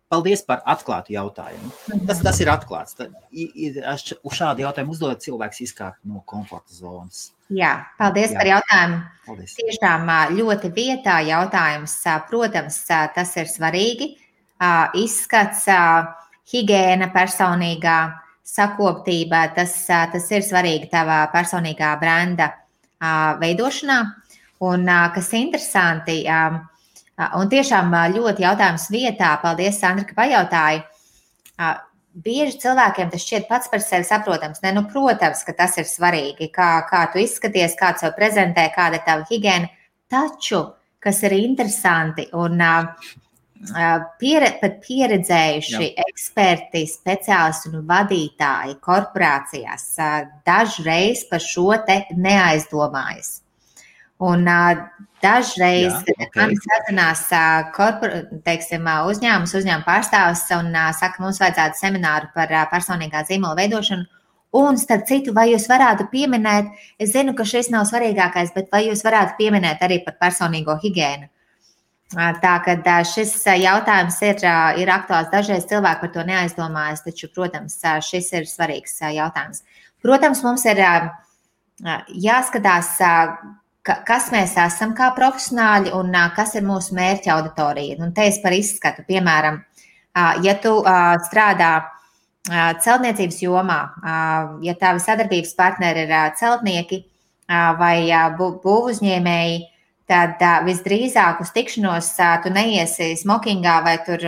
Paldies par atklātu jautājumu. Tas ir atklāts. Uz šādu jautājumu uzdodot cilvēks izkāpt no komforta zonas. Jā, paldies par jautājumu. Paldies. Tiešām ļoti vietā jautājums. Protams, tas ir svarīgi. Izskats, higiēna personīgā, sakoptība, tas ir svarīgi tavā personīgā brenda veidošanā. Un kas interesanti, un tiešām ļoti jautājums vietā, paldies, Sandra, ka pajautāji, bieži cilvēkiem tas šķiet pats par sevi saprotams. Ne, nu, protams, ka tas ir svarīgi, kā tu izskaties, kā tu sev prezentē, kāda ir tava higiēna, taču, kas ir interesanti un pat pieredzējuši eksperti, speciālisti un vadītāji korporācijās dažreiz par šo te neaizdomājas. Un dažreiz man sazinās uzņēmuma pārstāvis un saka, mums vajadzētu semināru par personīgā zīmola veidošanu. Un, starp citu, vai jūs varētu pieminēt, es zinu, ka šis nav svarīgākais, bet vai jūs varētu pieminēt arī par personīgo higiēnu? Tā, kad šis jautājums ir aktuāls, dažreiz cilvēki par to neaizdomājas, taču, protams, šis ir svarīgs jautājums. Protams, mums ir jāskatās, kas mēs esam kā profesionāļi un kas ir mūsu mērķa auditorija. Un te es par izskatu, piemēram, ja tu strādā celtniecības jomā, ja tavi sadarbības partneri ir celtnieki vai būvuzņēmēji, tad visdrīzāk uz tikšanos tu neiesi smokingā vai tur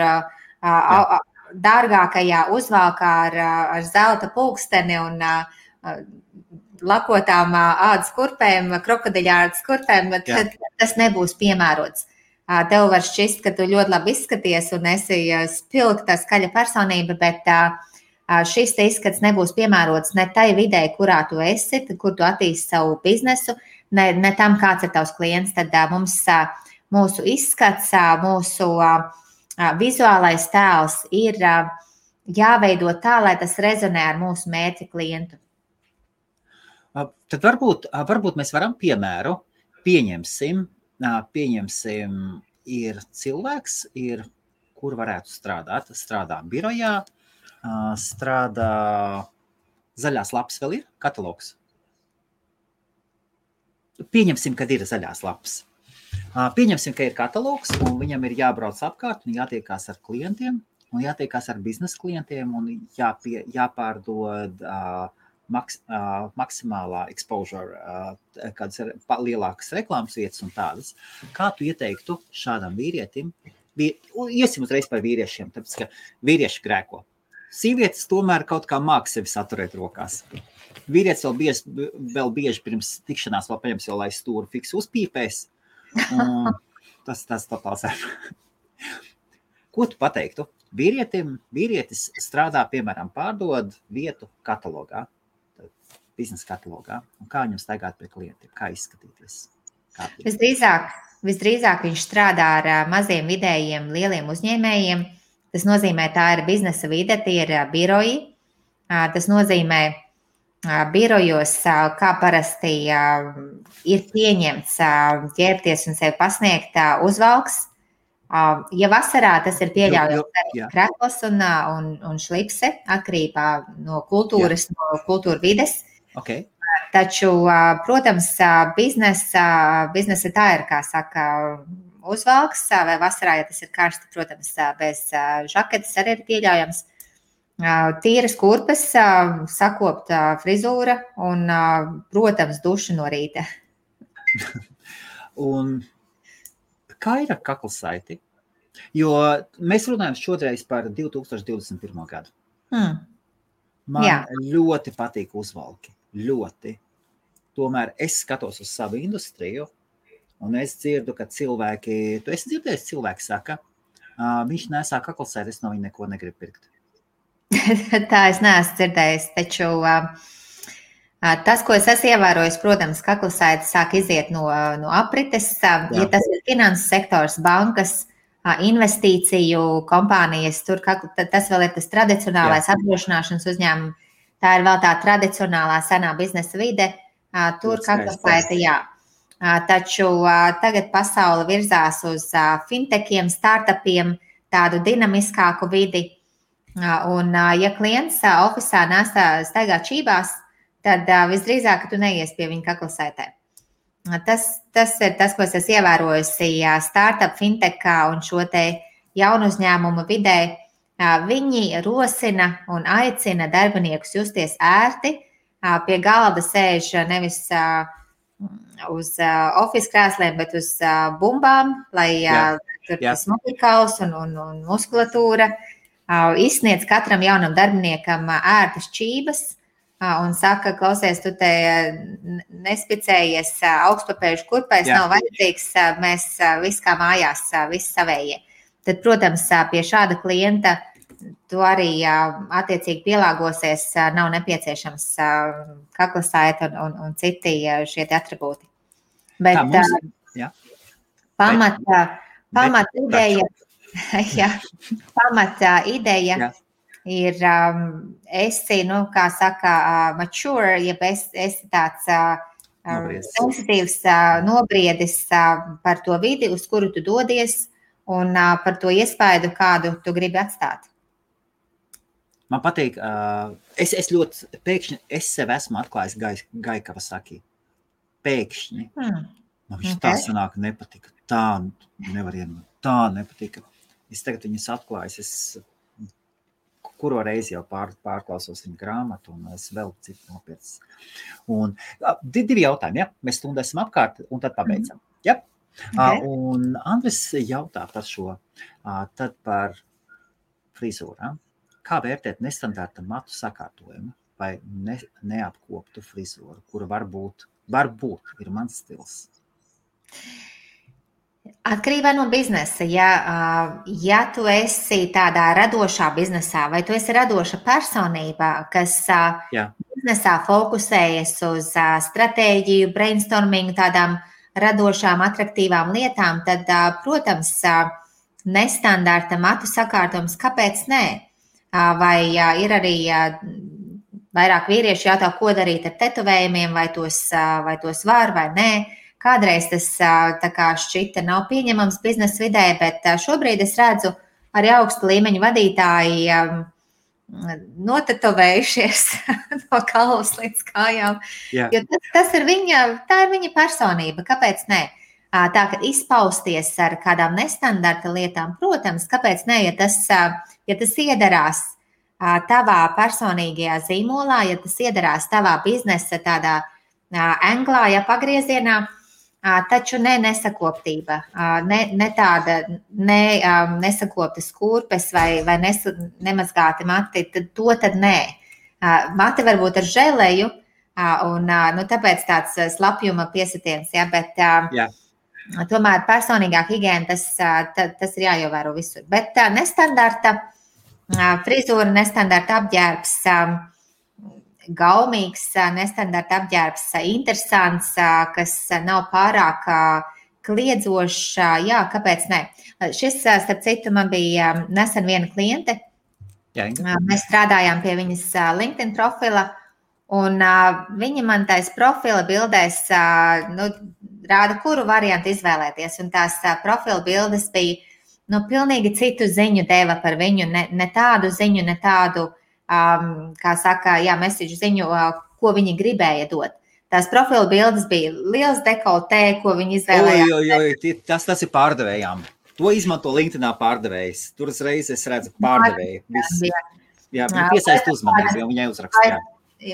dārgākajā uzvalkā ar zelta pulksteni un lakotām ādas kurpēm, krokodiļādas kurpēm, tad tas nebūs piemērots. Tev var šķist, ka tu ļoti labi izskaties un esi spilgta, skaļa personība, bet šis te izskats nebūs piemērots ne tai vidē, kurā tu esi, kur tu attīsti savu biznesu, ne tam, kāds ir tavs klients. Tad mums mūsu izskats, mūsu vizuālais tēls ir jāveido tā, lai tas rezonē ar mūsu mērķa klientu. Tad varbūt mēs varam piemēru, pieņemsim, ir cilvēks, kur varētu strādāt, strādā birojā, strādā zaļās lapas vēl ir, katalogs. Pieņemsim, kad ir zaļās lapas. Pieņemsim, ka ir katalogs un viņam ir jābrauc apkārt un jātiekās ar klientiem un jātiekās ar biznesa klientiem un jāpārdod maksimālā exposure, kādas ir lielākas reklāmas vietas un tādas. Kā tu ieteiktu šādam vīrietim? Iesim uzreiz par vīriešiem, tāpēc, ka vīrieši grēko. Sievietes tomēr kaut kā māk sevi saturēt rokās. Vīrietis vēl bieži pirms tikšanās vēl paņems jau, lai stūru fiksi uzpīpēs. Tas totāls ir. Ko tu pateiktu? Vīrietis strādā, piemēram, pārdod vietu katalogā, biznesa katalogā, un kā viņam staigāt pie klientiem, kā izskatīties? Visdrīzāk viņš strādā ar maziem, vidējiem, lieliem uzņēmējiem. Tas nozīmē, tā ir biznesa vide, tie ir biroji. Tas nozīmē, birojos, kā parasti ir pieņemts ģērbties un sevi pasniegt uzvalks. Ja vasarā tas ir pieļaujams arī krekls un šlipse, atkarībā no kultūras, no kultūra vides. Okay. Taču, protams, biznesa tā ir, kā saka, uzvalks, vai vasarā, ja tas ir karsti, protams, bez žaketes arī ir pieļaujams. Tīras kurpes, sakopta frizūra un, protams, duša no rīta. Un kā ir ar kaklasaiti? Jo mēs runājam šodreiz par 2021. gadu. Man ļoti patīk uzvalki. Ļoti. Tomēr es skatos uz savu industriju un es dzirdu, ka cilvēki, tu esi dzirdējis, cilvēki saka, viņš nesā kaklasaiti, es no viņa neko negribu pirkt. Tā es neesmu dzirdējis, taču tas, ko es esmu ievērojis, protams, kaklasaiti sāk iziet no aprites. Ja tas ir finanses sektors, bankas, investīciju kompānijas, tur tas vēl ir tas tradicionālais apdrošināšanas uzņēmums. Tā ir vēl tā tradicionālā senā biznesa vide. Tur kaklasaiti, jā. Taču tagad pasaule virzās uz fintechiem, startupiem, tādu dinamiskāku vidi. Un, ja klients ofisā staigā čībās, tad visdrīzāk, ka tu neies pie viņa kaklasaitē. Tas ir tas, ko es esmu ievērojusi startup, fintechā un šo te jaunu uzņēmumu vidē. Viņi rosina un aicina darbiniekus justies ērti, pie galda sēž nevis uz office krēsliem, bet uz bumbām, lai tur tas mugurkauls un muskulatūra izsniedz katram jaunam darbiniekam ērtas čības un saka, klausies, tu te nespicējies augstpapēžu kurpēs, nav vajadzīgs, mēs viss kā mājās, viss savējie. Tad, protams, pie šāda klienta tu arī attiecīgi pielāgosies, nav nepieciešams kaklasaita un citi šie atribūti. Bet pamata ideja ir, esi, kā saka, mature, ja esi tāds sensitīvs, nobriedis par to vidi, uz kuru tu dodies, un par to iespaidu, kādu tu gribi atstāt. Man patīk, es ļoti pēkšņi, es sev esmu atklājis Gai Kawasaki. Pēkšņi. Man viņš tā sanāk nepatika. Tā nevar ienot. Tā nepatika. Es tagad viņas atklājis. Es kuro reizi jau pārklausos viņa grāmatu un es vēl citu nopietnes. Un divi jautājumi, Mēs stundu esam apkārt un tad pabeidzam. Un Andris jautā par šo, tad par frizūrām. Kā vērtēt nestandarta matu sakārtojumu vai neapkoptu frizūru, kura varbūt ir mans stils? Atkarībā no biznesa. Ja tu esi tādā radošā biznesā vai tu esi radoša personība, kas biznesā fokusējas uz stratēģiju, brainstormingu, tādām radošām, atraktīvām lietām, tad, protams, nestandarta matu sakārtojums, kāpēc nē? Vai ir arī vairāk vīrieši jautā, ko darīt ar tetovējumiem, vai tos var vai nē. Kādreiz tas tā kā šķita nav pieņemams biznesa vidē, bet šobrīd es redzu arī augsta līmeņa vadītāji notetovējušies no galvas līdz kājām. Jo tā ir viņa personība, kāpēc nē? Tā, ka izpausties ar kādām nestandarta lietām, protams, kāpēc ne, ja tas iedarās tavā personīgajā zīmolā, ja tas iedarās tavā biznesa tādā anglā, pagriezienā, taču nesakoptība, ne tāda nesakoptas kurpes vai nemazgāti mati, tad nē. Mati varbūt ar želeju, un tāpēc tāds slapjuma piesitiens, bet tomēr personīgā higiēna, tas ir jāievēro visur. Bet nestandarta frizūra, nestandarta apģērbs, gaumīgs, nestandarta apģērbs, interesants, kas nav pārāk kliedzošs, kāpēc ne? Šis, starp citu, man bija nesen viena kliente. Mēs strādājām pie viņas LinkedIn profila, un viņa man tais profila bildēs rāda, kuru variantu izvēlēties. Un tās profila bildes bija pilnīgi citu ziņu deva par viņu, ne tādu ziņu, ne tādu, kā saka, message ziņu, ko viņi gribēja dot. Tās profila bildes bija liels dekoltē, ko viņi izvēlējās. Tas ir pārdevējām. To izmanto LinkedInā pārdevējs. Tur uzreiz es redzu pārdevēju. Viņi piesaist uzmanību, jo viņai uzrakstījā.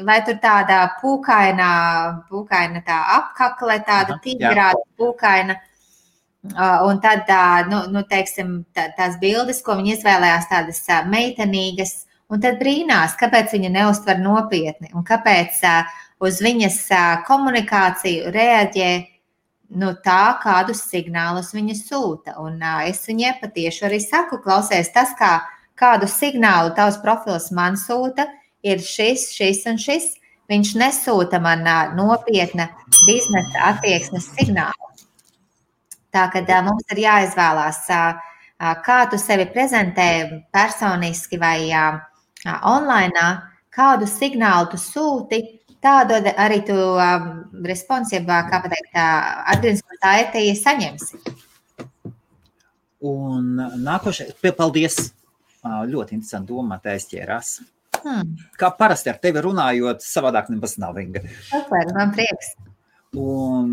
Vai tur tāda pūkaina tā apkakle, tāda tīgrāta pūkaina. Un tad, teiksim, tās bildes, ko viņi izvēlējās, tādas meitenīgas, un tad brīnās, kāpēc viņa neuztver nopietni, un kāpēc uz viņas komunikāciju reaģē tā, kādus signālus viņa sūta. Un es viņai patieši arī saku, klausies, tas, kādu signālu tavs profils man sūta, ir šis un šis. Viņš nesūta man nopietna biznesa attieksmes signālu. Tā, kad mums ir jāizvēlās, kā tu sevi prezentē personiski vai online, kādu signālu tu sūti, tādu arī tu responsībā, kā pateikt, atgrieznisko saiti saņemsi. Un nākošais, paldies, ļoti interesanti doma, tā aizķērās. Kā parasti ar tevi runājot, savādāk nebaz nav, Inga. Super, man prieks. Un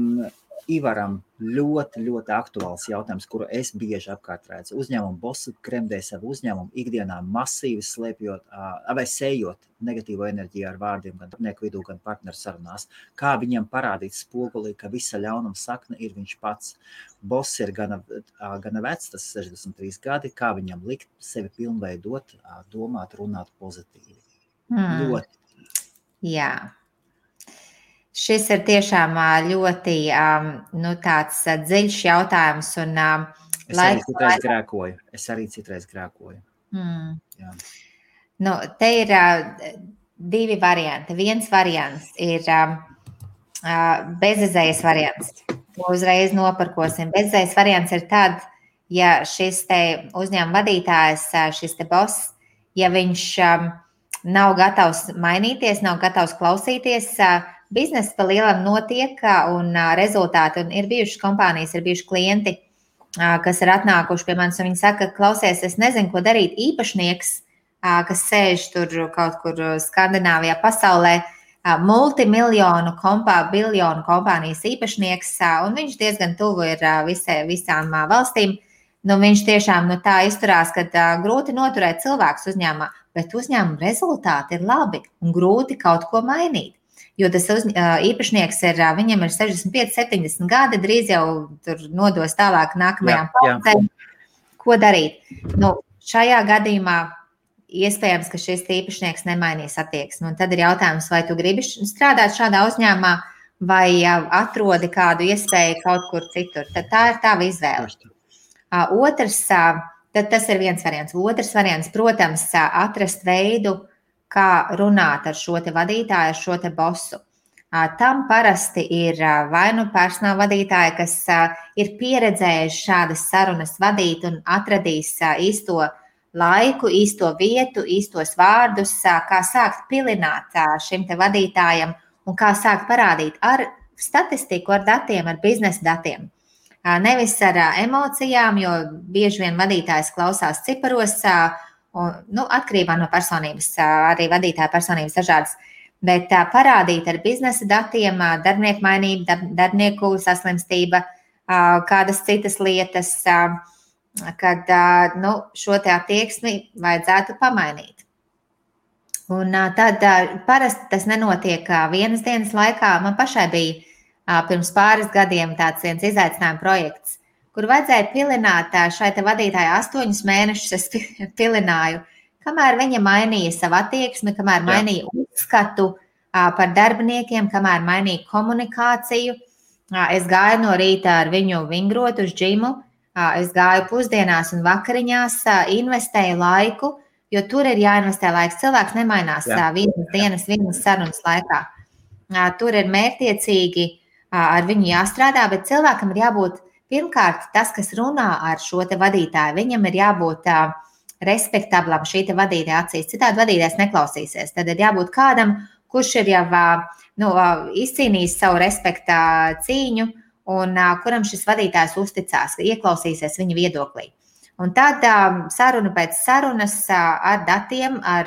Ivaram ļoti, ļoti aktuāls jautājums, kuru es bieži apkārt redzu. Uzņēmumu bosi kremdē savu uzņēmumu ikdienā masīvi slēpjot vai sējot negatīvo enerģiju ar vārdiem gan darbinieku vidū, gan partneru sarunās. Kā viņam parādīt spogulī, ka visa ļaunuma sakne ir viņš pats. Boss ir gana vecs, tas 63 gadi, kā viņam likt sevi pilnveidot, domāt, runāt pozitīvi. Ļoti. Jā. Šis ir tiešām ļoti tāds dziļš jautājums. Un, Es arī citreiz grēkoju. Jā. Te ir divi varianti. Viens variants ir bezizējas variants. To uzreiz noparkosim. Bezizējas variants ir tad, ja šis te uzņēmuma vadītājs, šis te boss, ja viņš nav gatavs mainīties, nav gatavs klausīties, biznesa pa lielam notiek un rezultāti, un ir bijušas kompānijas, ir bijuši klienti, kas ir atnākuši pie manis, un viņi saka, klausies, es nezinu, ko darīt. Īpašnieks, kas sēž tur kaut kur Skandināvijā pasaulē, multimiljonu biljonu kompānijas īpašnieks, un viņš diezgan tuvu ir visām valstīm. Viņš tiešām tā izturās, ka grūti noturēt cilvēkus uzņēmumā, bet uzņēmuma rezultāti ir labi un grūti kaut ko mainīt. Jo tas īpašnieks viņam ir 65, 70 gadi, drīz jau tur nodos tālāk nākamajām paudzēm. Ko darīt? Šajā gadījumā iespējams, ka šis īpašnieks nemainīs attieksmi. Un tad ir jautājums, vai tu gribi strādāt šādā uzņēmumā, vai atrodi kādu iespēju kaut kur citur. Tad tā ir tava izvēle. Tas ir viens variants. Otrs variants, protams, atrast veidu, kā runāt ar šo te vadītāju, ar šo te bosu. Tam parasti ir vai personāla vadītāji, kas ir pieredzējuši šādas sarunas vadīt un atradīs īsto laiku, īsto vietu, īstos vārdus, kā sākt pilināt šim te vadītājam un kā sākt parādīt ar statistiku, ar datiem, ar biznesa datiem. Nevis ar emocijām, jo bieži vien vadītājs klausās ciparos, atkarībā no personības, arī vadītāja personības dažādas, bet parādīt ar biznesa datiem, darbinieku mainību, darbinieku saslimstība, kādas citas lietas, kad šo te attieksmi vajadzētu pamainīt. Un tad parasti tas nenotiek vienas dienas laikā. Man pašai bija pirms pāris gadiem tāds viens izaicinājuma projekts, kur vajadzēja pilināt šai te vadītāji 8 mēnešus. Es pilināju, kamēr viņa mainīja savu attieksmi, kamēr mainīja uzskatu par darbiniekiem, kamēr mainīja komunikāciju. Es gāju no rīta ar viņu vingrot uz džimu, es gāju pusdienās un vakariņās, investēju laiku, jo tur ir jāinvestē laiks. Cilvēks nemainās vienas dienas, vienas sarunas laikā. Tur ir mērķtiecīgi ar viņu jāstrādā, bet cilvēkam ir jābūt pirmkārt, tas, kas runā ar šo te vadītāju, viņam ir jābūt respektablam šī te vadītāja acīs. Citādi vadītājs neklausīsies. Tad ir jābūt kādam, kurš ir jau izcīnījis savu respekta cīņu un kuram šis vadītājs uzticās, ieklausīsies viņa viedoklī. Un tad saruna pēc sarunas ar datiem, ar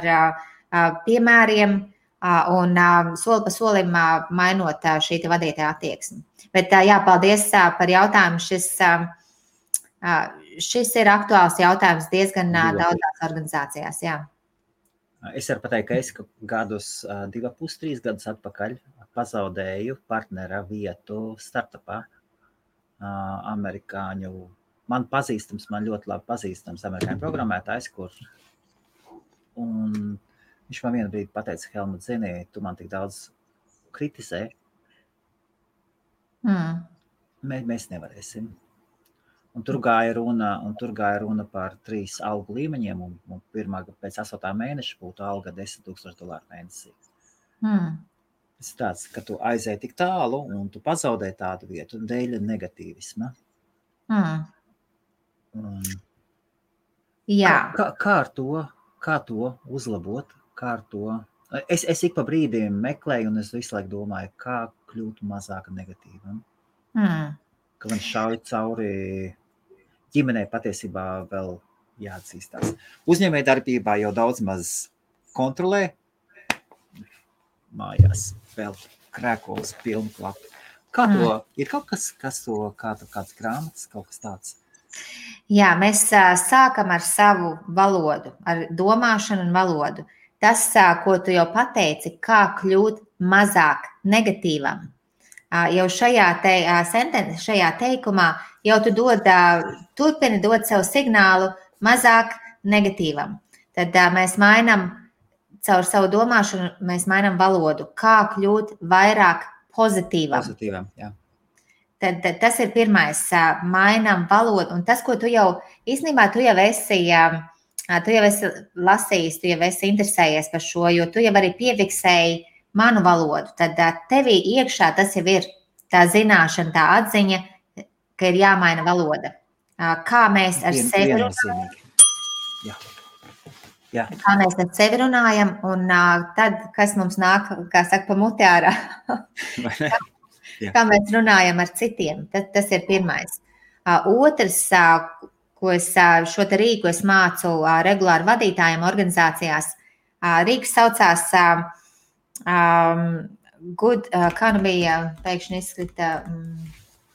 piemēriem un soli pa solim mainot šī te vadītāja attieksmi. Bet paldies par jautājumu. Šis ir aktuāls jautājums diezgan daudzās organizācijās. Jā. Es varu pateikt, ka es gadus 2,5–3 gadus atpakaļ pazaudēju partnera vietu startupā amerikāņu. Man ļoti labi pazīstams amerikāņu programmētājs, un viņš man vienu brīdi pateica, Helmut, zini, tu man tik daudz kritizē. Mēs nevarēsim. Un tur gāja runa par 3 algu līmeņiem, un pēc 8 mēneša būtu alga $10,000 mēnesī. Tas ir tāds, ka tu aizēji tik tālu, un tu pazaudē tādu vietu dēļ negatīvisma. Kā to uzlabot? Es ik pa brīdiem meklēju, un es visu laiku domāju, kā kļūt mazāk negatīvam. Ka man šauj cauri ģimenei patiesībā vēl jāatzīstās. Uzņēmējdarbībā jau daudz maz kontrolē. Mājās vēl krēkols pilnu klapu. Kā to, ir kaut kas, to, kāds grāmatas, kaut kas tāds? Jā, mēs sākam ar savu valodu, ar domāšanu un valodu. Tas, ko tu jau pateici, kā kļūt mazāk negatīvam. Jau šajā teikumā jau tu turpini dot sev signālu mazāk negatīvam. Tad mēs mainām caur savu domāšanu, mēs mainām valodu, kā kļūt vairāk pozitīvam. Pozitīvam, jā. Tad tas ir pirmais, mainām valodu. Un tas, ko tu jau īstenībā tu jau esi lasījis, tu jau esi interesējies par šo, jo tu jau arī piefiksēji manu valodu. Tad tevī iekšā tas jau ir tā zināšana, tā atziņa, ka ir jāmaina valoda. Kā mēs ar sevi runājam? Jā. Kā mēs ar sevi runājam, un tad, kas mums nāk, kā saka, pa muti ārā. Kā mēs runājam ar citiem, tas ir pirmais. Otrs, ko es šo te rīku es mācu regulāri vadītājiem organizācijās, rīks saucās kā nu bija, pēkšņi izskrita,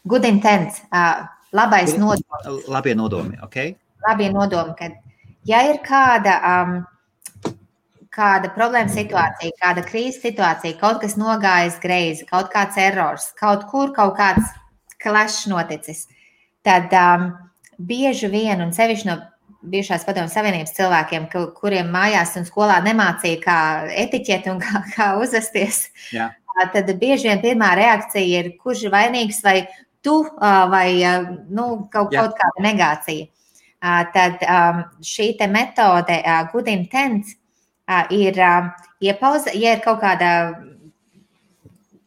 good intent, labais nodoms. Labie nodomi, ok? Labie nodomi, kad ja ir kāda problēma situācija, kāda krīzes situācija, kaut kas nogājis greizi, kaut kāds errors, kaut kāds clash noticis, tad bieži vien, un sevišķi no bijušās Padomju Savienības cilvēkiem, kuriem mājās un skolā nemācīja, kā etiķeti un kā uzvesties, tad bieži vien pirmā reakcija ir, kurš ir vainīgs, vai tu, vai kaut kāda negācija. Tad šī te metode good intent ir iepauze, ja ir kaut kāda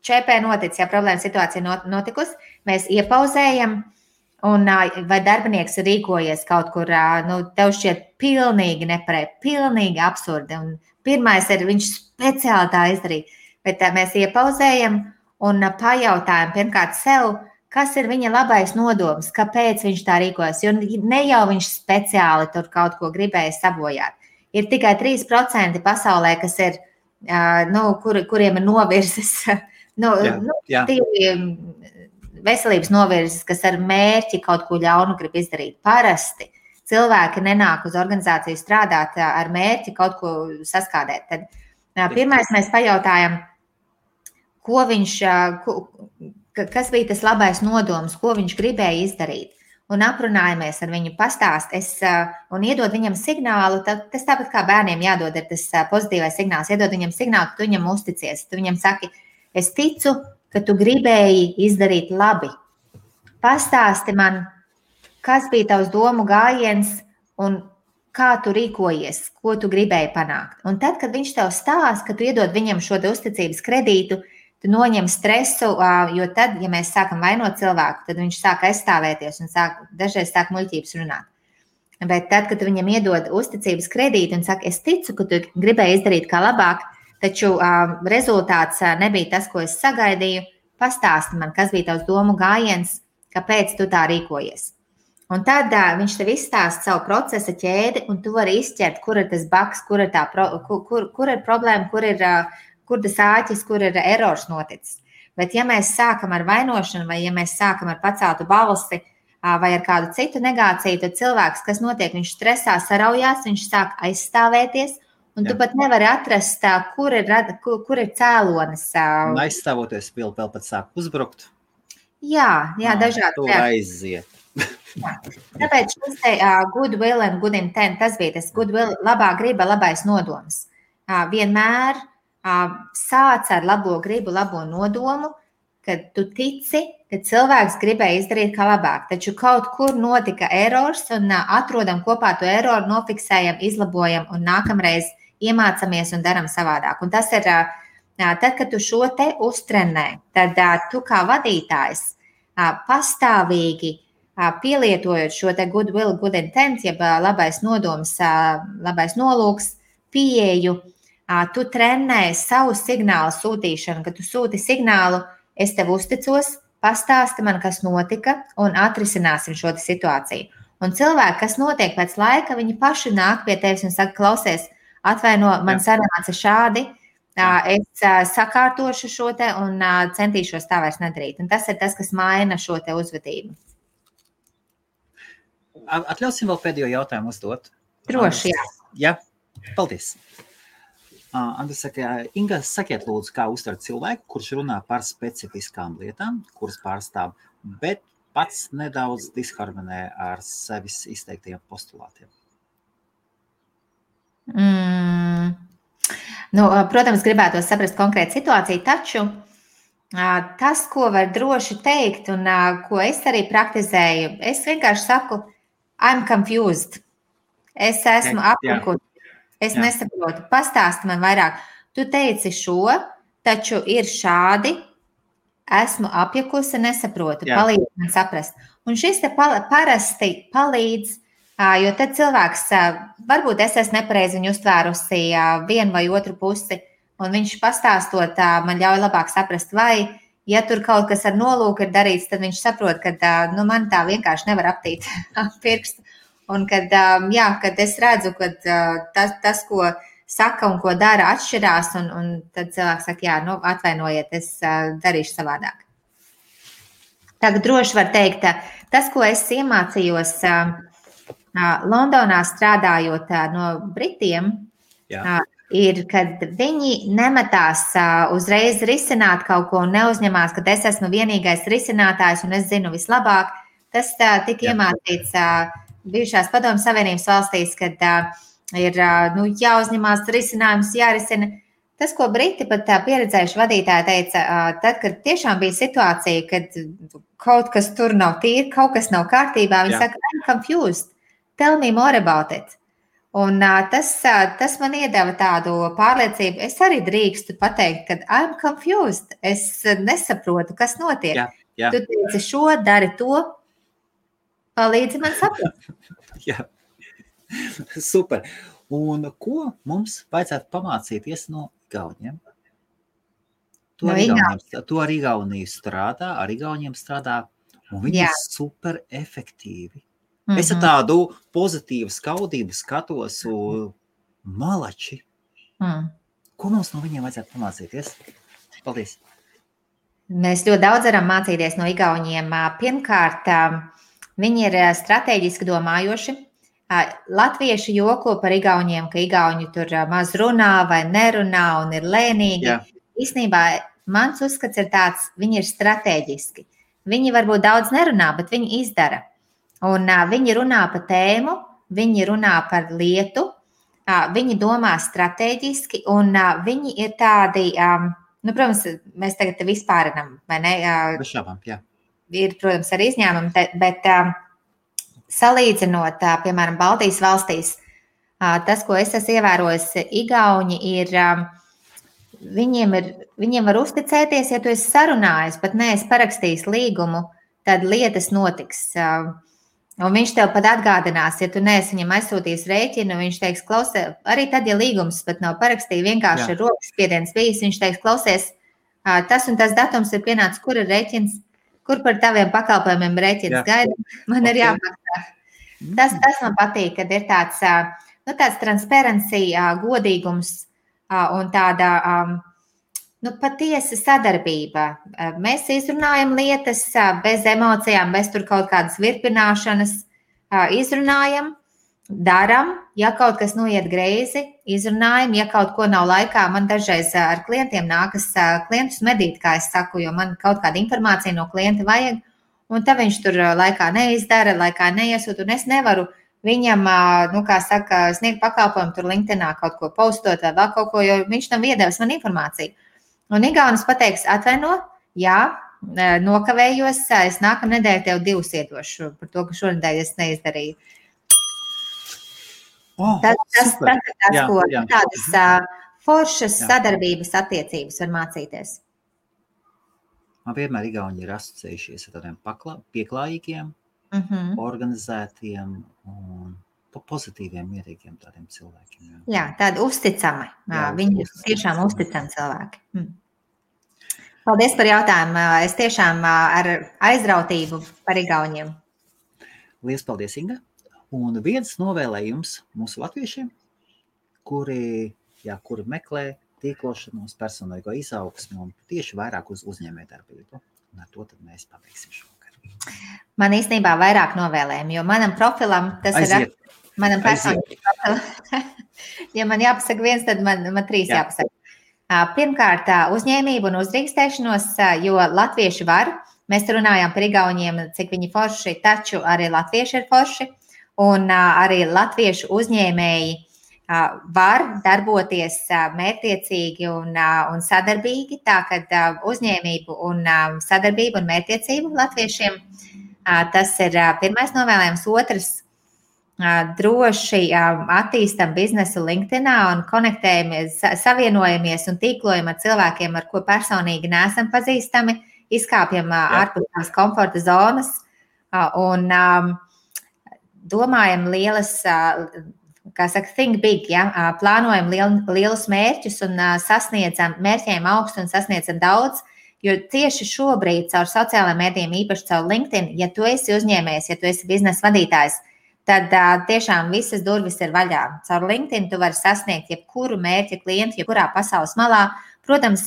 ČP noticis, ja problēma situācija notikusi, mēs iepauzējam, un vai darbinieks ir rīkojies kaut kur, tev šķiet pilnīgi nepareizi, pilnīgi absurdi, un pirmais ir, viņš speciāli tā izdarīja, bet mēs iepauzējam un pajautājam pirmkārt sev, kas ir viņa labais nodoms, kāpēc viņš tā rīkojas, jo ne jau viņš speciāli tur kaut ko gribēja sabojāt. Ir tikai 3% pasaulē, kas ir, kuriem ir novirzes, veselības novirzes, kas ar mērķi kaut ko ļaunu grib izdarīt. Parasti cilvēki nenāk uz organizāciju strādāt ar mērķi kaut ko saskādēt. Tad pirmais mēs pajautājam, kas bija tas labais nodoms, ko viņš gribēja izdarīt. Un aprunājamies ar viņu, pastāst un iedod viņam signālu, tas tāpat kā bērniem jādod ir tas pozitīvais signāls, iedod viņam signālu, ka tu viņam uzticies. Tu viņam saki, es ticu, ka tu gribēji izdarīt labi. Pastāsti man, kas bija tavs domu gājiens un kā tu rīkojies, ko tu gribēji panākt. Un tad, kad viņš tev stāsta, ka tu iedod viņam šo uzticības kredītu, tu noņem stresu, jo tad, ja mēs sākam vainot cilvēku, tad viņš sāk aizstāvēties un dažreiz sāk muļķības runāt. Bet tad, kad tu viņam iedod uzticības kredītu un saka, es ticu, ka tu gribēji izdarīt kā labāk, taču rezultāts nebija tas, ko es sagaidīju, pastāsti man, kas bija tavs domu gājiens, kāpēc tu tā rīkojies. Un tad viņš tev izstāsta savu procesa ķēdi, un tu vari izšķirt, kur ir tas bugs, kur ir problēma, kur tas āķis, kur ir erors noticis. Bet ja mēs sākam ar vainošanu, vai ja mēs sākam ar paceltu balsi, vai ar kādu citu negāciju, tad cilvēks, kas notiek, viņš stresā saraujās, viņš sāk aizstāvēties, un tu pat nevari atrast, kur ir cēlonis. Un aizstāvoties vēl pat sāk uzbrukt. Jā, dažādi. Tu aiziet. Tāpēc šis te good will and good intent, tas bija tas good will, labā griba, labais nodoms. Vienmēr sāc ar labo gribu, labo nodomu, kad tu tici, ka cilvēks gribēja izdarīt kā labāk. Taču kaut kur notika erors un atrodam kopā to eroru, nofiksējam, izlabojam un nākamreiz iemācamies un daram savādāk. Un tas ir, tad, kad tu šo te uztrenē, tad tu kā vadītājs pastāvīgi pielietojot šo te good will, good intent, jeb labais nodoms, labais nolūks, pieeju, tu trenē savu signālu sūtīšanu, kad tu sūti signālu, es tev uzticos, pastāsti man, kas notika, un atrisināsim šo situāciju. Un cilvēki, kas notiek pēc laika, viņi paši nāk pie tevis un saka, klausies, atvaino, man sanāca šādi, Es sakārtošu šo te un centīšos tā vairs nedarīt. Un tas ir tas, kas maina šo te uzvedību. Atļausim vēl pēdējo jautājumu uzdot. Droši, jā. Jā, paldies. Andris saka, Inga, sakiet lūdzu, kā uztvert cilvēku, kurš runā par specifiskām lietām, kuras pārstāv, bet pats nedaudz disharmonē ar sevis izteiktiem postulātiem? Protams, gribētos saprast konkrētu situāciju, taču tas, ko var droši teikt un ko es arī praktizēju, es vienkārši saku, I'm confused. Es esmu apjukusi. Es nesaprotu. Pastāsti man vairāk. Tu teici šo, taču ir šādi. Esmu apjukusi, nesaprotu. Palīdz man saprast. Un šis te parasti palīdz, jo tad cilvēks, varbūt es esmu nepareizi viņu uztvērusi vienu vai otru pusi, un viņš pastāstot man ļauj labāk saprast, vai, ja tur kaut kas ar nolūku ir darīts, tad viņš saprot, ka man tā vienkārši nevar aptīt pirkstu. Un kad es redzu, ka tas, ko saka un ko dara, atšķirās, un tad cilvēks saka, atvainojiet, es darīšu savādāk. Tagad droši var teikt, tas, ko es iemācījos Londonā strādājot no Britiem, ir, kad viņi nemetās uzreiz risināt kaut ko un neuzņemās, ka es esmu vienīgais risinātājs un es zinu vislabāk. Tas tika iemācīts bijušās Padomju Savienības valstīs, kad ir jāuzņemās risinājums, jārisina. Tas, ko Briti pat pieredzējuši vadītāji teica, tad, kad tiešām bija situācija, kad kaut kas tur nav tīri, kaut kas nav kārtībā, viņi saka, I'm confused, tell me more about it. Un tas man iedeva tādu pārliecību, es arī drīkstu pateikt, ka I'm confused, es nesaprotu, kas notiek. Tu teici šo, dari to, palīdzi man saprast. Jā, super. Un ko mums vajadzētu pamācīties no Igauniem? To ar Igauniju strādā, ar Igauniem strādā, un viņi ir super efektīvi. Es ar tādu pozitīvu skaudību skatos malači. Ko mums no viņiem vajadzētu pamācīties? Paldies. Mēs ļoti daudz varam mācīties no Igauniem. Pirmkārt, viņi ir strateģiski domājoši. Latvieši joko par Igauniem, ka Igauni tur maz runā vai nerunā un ir lēnīgi. Īstenībā mans uzskats ir tāds, viņi ir strateģiski. Viņi varbūt daudz nerunā, bet viņi izdara. Un viņi runā par tēmu, viņi runā par lietu, viņi domā strateģiski un viņi ir tādi, protams, mēs tagad te vispārinam, vai ne? Bešābām, jā. Ir, protams, arī izņēmumi, bet salīdzinot, piemēram, Baltijas valstīs, tas, ko es esmu ievērojis, Igauni ir, viņiem var uzticēties, ja tu esi sarunājis, pat neesi parakstījis līgumu, tad lietas notiks. Un viņš tev pat atgādinās, ja tu neesi viņam aizsūtījis rēķinu, viņš teiks, klausies, arī tad, ja līgums pat nav parakstījis, vienkārši ir rokas spiediens bijis, viņš teiks, klausies, tas un tas datums ir pienācis, kur ir rēķins, kur par taviem pakalpojumiem rēķins gaida, man ir jāmaksā. Tas man patīk, kad ir tāds transparency, godīgums un tāda patiesa sadarbība. Mēs izrunājam lietas bez emocijām, bez tur kaut kādas virpināšanas, izrunājam, daram, ja kaut kas noiet greizi, izrunājam, ja kaut ko nav laikā, man dažreiz ar klientiem nākas klientus medīt, kā es saku, jo man kaut kāda informācija no klienta vajag, un tad viņš tur laikā neizdara, laikā neiesūt, un es nevaru viņam, sniegt pakalpojumu tur LinkedInā kaut ko postot vai vēl kaut ko, jo viņš tam iedevis man informāciju. Un Igaunis pateiks, atvaino, jā, nokavējos, es nākamā nedēļa tev 2 iedošu par to, ka šonedēļ es neizdarīju. Tas ir tas, ko tādas foršas sadarbības attiecības var mācīties. Man vienmēr Igauni ir asociējušies ar tādiem pieklājīgiem, organizētiem un pozitīviem, mierīgiem tādiem cilvēkiem. Jā, tādi uzticami. Viņi ir tiešām uzticami cilvēki. Paldies par jautājumu. Es tiešām ar aizrautību par Igauniem. Liels paldies, Inga. Un viens novēlējums mūsu latviešiem, kuri meklē tīklošanos, personīgo izaugsmu un tieši vairāk uz uzņēmējdarbību. Un ar to tad mēs pabeigsim šovakar. Man īstenībā vairāk novēlējumi, jo manam profilam tas Aiziet. ir manam personīgam profilam. Ja man jāpasaka viens, tad man trīs jāpasaka. Pirmkārt, uzņēmību un uzdrīkstēšanos, jo latvieši var. Mēs runājām par igauniem, cik viņi forši, taču arī latvieši ir forši. Un arī latviešu uzņēmēji var darboties mērķtiecīgi un sadarbīgi. Tā kad uzņēmību un sadarbību un mērķtiecību latviešiem, tas ir pirmais novēlējums. Otrs, droši attīstam biznesu LinkedInā un konektējamies, savienojamies un tīklojam ar cilvēkiem, ar ko personīgi neesam pazīstami, izkāpjam ārpus tās komforta zonas un domājam lielas, kā saka, think big, ja? Plānojam lielus mērķus un sasniedzam mērķiem augstu un sasniedzam daudz, jo tieši šobrīd caur sociālajiem mēdījiem, īpaši caur LinkedIn, ja tu esi uzņēmējs, ja tu esi biznesa vadītājs, tad tiešām visas durvis ir vaļā. Caur LinkedIn tu vari sasniegt jebkuru mērķa klientu, jebkurā pasaules malā. Protams,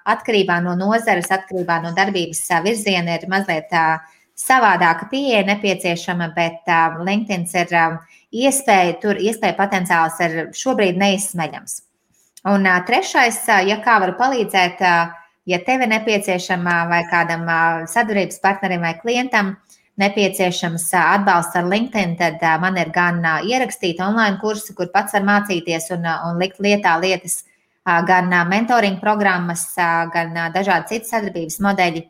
atkarībā no nozares, atkarībā no darbības virziena ir mazliet savādāka pieeja nepieciešama, bet LinkedIn ir iespēja potenciāls ir šobrīd neizsmeļams. Un trešais, ja kā varu palīdzēt, ja tev ir nepieciešama vai kādam sadarbības partnerim vai klientam nepieciešams atbalsts ar LinkedIn, tad man ir gan ierakstīti online kursi, kur pats var mācīties un likt lietā lietas, gan mentoring programmas, gan dažādi citi sadarbības modeļi.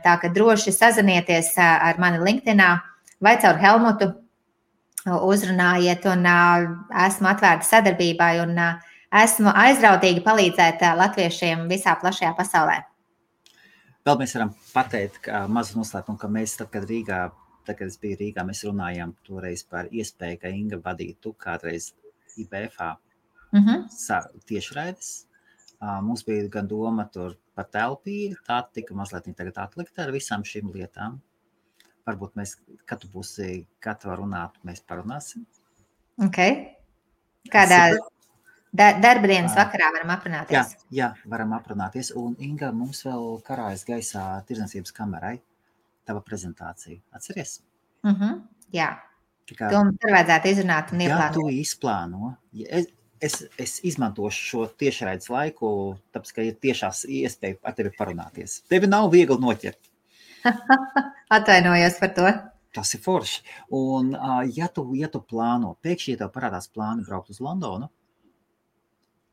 Tā ka droši sazinieties ar mani LinkedInā vai caur Helmutu uzrunājiet un esmu atvērta sadarbībai un esmu aizrautīgi palīdzēt latviešiem visā plašajā pasaulē. Vēl mēs varam pateikt mazu noslēpumu, ka mēs, tad, kad es biju Rīgā, mēs runājām toreiz par iespēju, ka Inga vadītu kādreiz IBFā tiešraides. Mums bija gan doma tur par telpīri, tā tika mazliet tagad atlikta ar visām šīm lietām. Varbūt mēs, kad tu būsi gatava runāt, mēs parunāsim. Ok. Kādā darbdienas vakarā varam aprunāties? Jā, varam aprunāties. Un Inga, mums vēl karājas gaisā tirdzniecības kamerai tava prezentācija. Atceries? Jā. To mums ir vajadzētu izrunāt un ieplānot. Jā, tu izplāno. Es izmantošu šo tiešraides laiku, tāpēc, ka ir tiešās iespēja ar tevi parunāties. Tevi nav viegli noķert. Atvainojos par to. Tas ir forši. Un ja tu plāno, pēkšņi, ja tev parādās plāni braukt uz Londonu,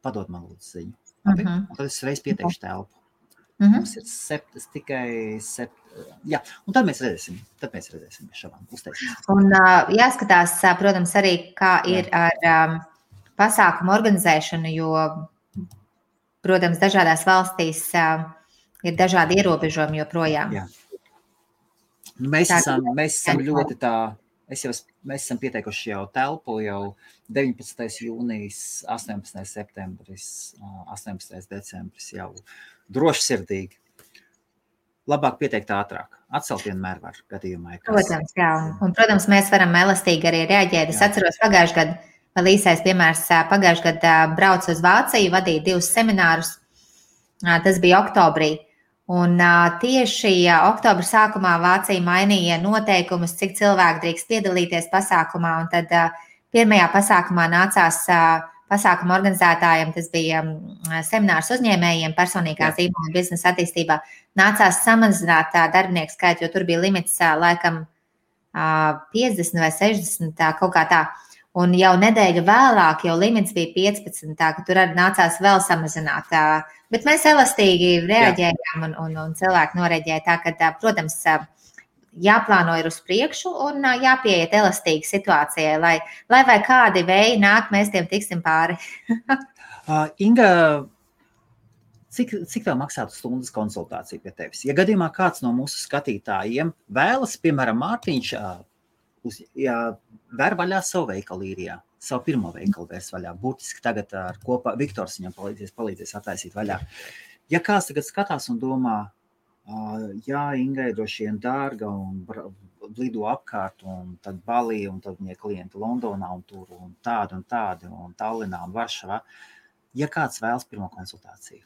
padod man lūdzu ziņu. Un tad es reiz pieteikšu telpu. Mums ir tikai 7. Jā, un tad mēs redzēsim. Šabām uztaisīsim. Un jāskatās, protams, arī, kā ir ar pasākumu organizēšanu, jo, protams, dažādās valstīs ir dažādi ierobežojumi joprojām. Jā. Mēs esam ļoti tā, mēs esam pieteikuši jau telpu, jau 19. jūnijas, 18. septembris, 18. decembris jau droši sirdīgi. Labāk pieteikt ātrāk. Atcelt vienmēr var gadījumā. Protams, jā. Un, protams, mēs varam elastīgi arī reaģēt. Es atceros pagājušajā gadā, vēl īsais piemērs, pagājušajā gadā braucu uz Vāciju, vadīju 2 seminārus. Tas bija oktobrī. Un tieši oktobra sākumā Vācija mainīja noteikumus, cik cilvēki drīkst piedalīties pasākumā. Un tad pirmajā pasākumā nācās pasākuma organizētājiem, tas bija seminārs uzņēmējiem, personīgā zīmola biznesa attīstībā, nācās samazināt darbinieku skaitu, jo tur bija limits laikam 50 vai 60, kaut kā tā. Un jau nedēļu vēlāk jau limits bija 15, tā ka tur arī nācās vēl samazināt. Bet mēs elastīgi reaģējām un cilvēki noreaģēja tā, ka, protams, jāplāno ir uz priekšu un jāpieiet elastīgi situācijai, lai vai kādi vēji nāk, mēs tiem tiksim pāri. Inga, cik tev maksātu stundas konsultāciju pie tevis? Ja gadījumā kāds no mūsu skatītājiem vēlas, piemēram, Mārtiņš, vēr vaļā savu veikalu īrijā, savu pirmo veikalu vērs vaļā. Būtiski tagad ar kopā Viktors viņam palīdzēs attaisīt vaļā. Ja kāds tagad skatās un domā, jā, Ingai droši vien dārga un lido apkārt un tad Balī un tad viņai klienti Londonā un tur un tādi un Tallinā un Varšavā. ja kāds vēlas pirmo konsultāciju?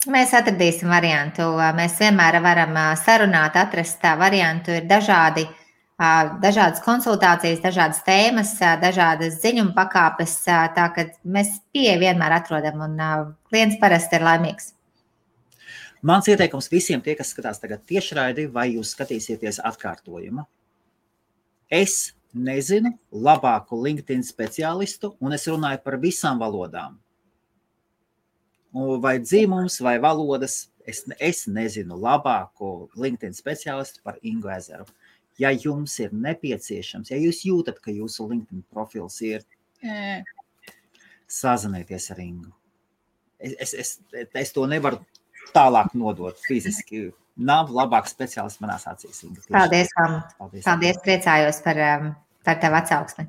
Mēs atradīsim variantu. Mēs vienmēr varam sarunāt, atrast variantu. Ir dažādas konsultācijas, dažādas tēmas, dažādas ziņuma pakāpes. Tā ka mēs pieeja vienmēr atrodam un klients parasti ir laimīgs. Mans ieteikums visiem tie, kas skatās tagad tiešraidi, vai jūs skatīsieties atkārtojumu. Es nezinu labāku LinkedIn speciālistu, un es runāju par visām valodām. Vai dzīmums, vai valodas, es nezinu labāko LinkedIn speciālistu par Ingu Ezeru. Ja jums ir nepieciešams, ja jūs jūtat, ka jūsu LinkedIn profils ir, sazinieties ar Ingu. Es to nevaru tālāk nodot fiziski. Nav labāk speciālists manās acīs. Inga. Paldies, Helmut. Paldies, priecājos par tev atsauksmi.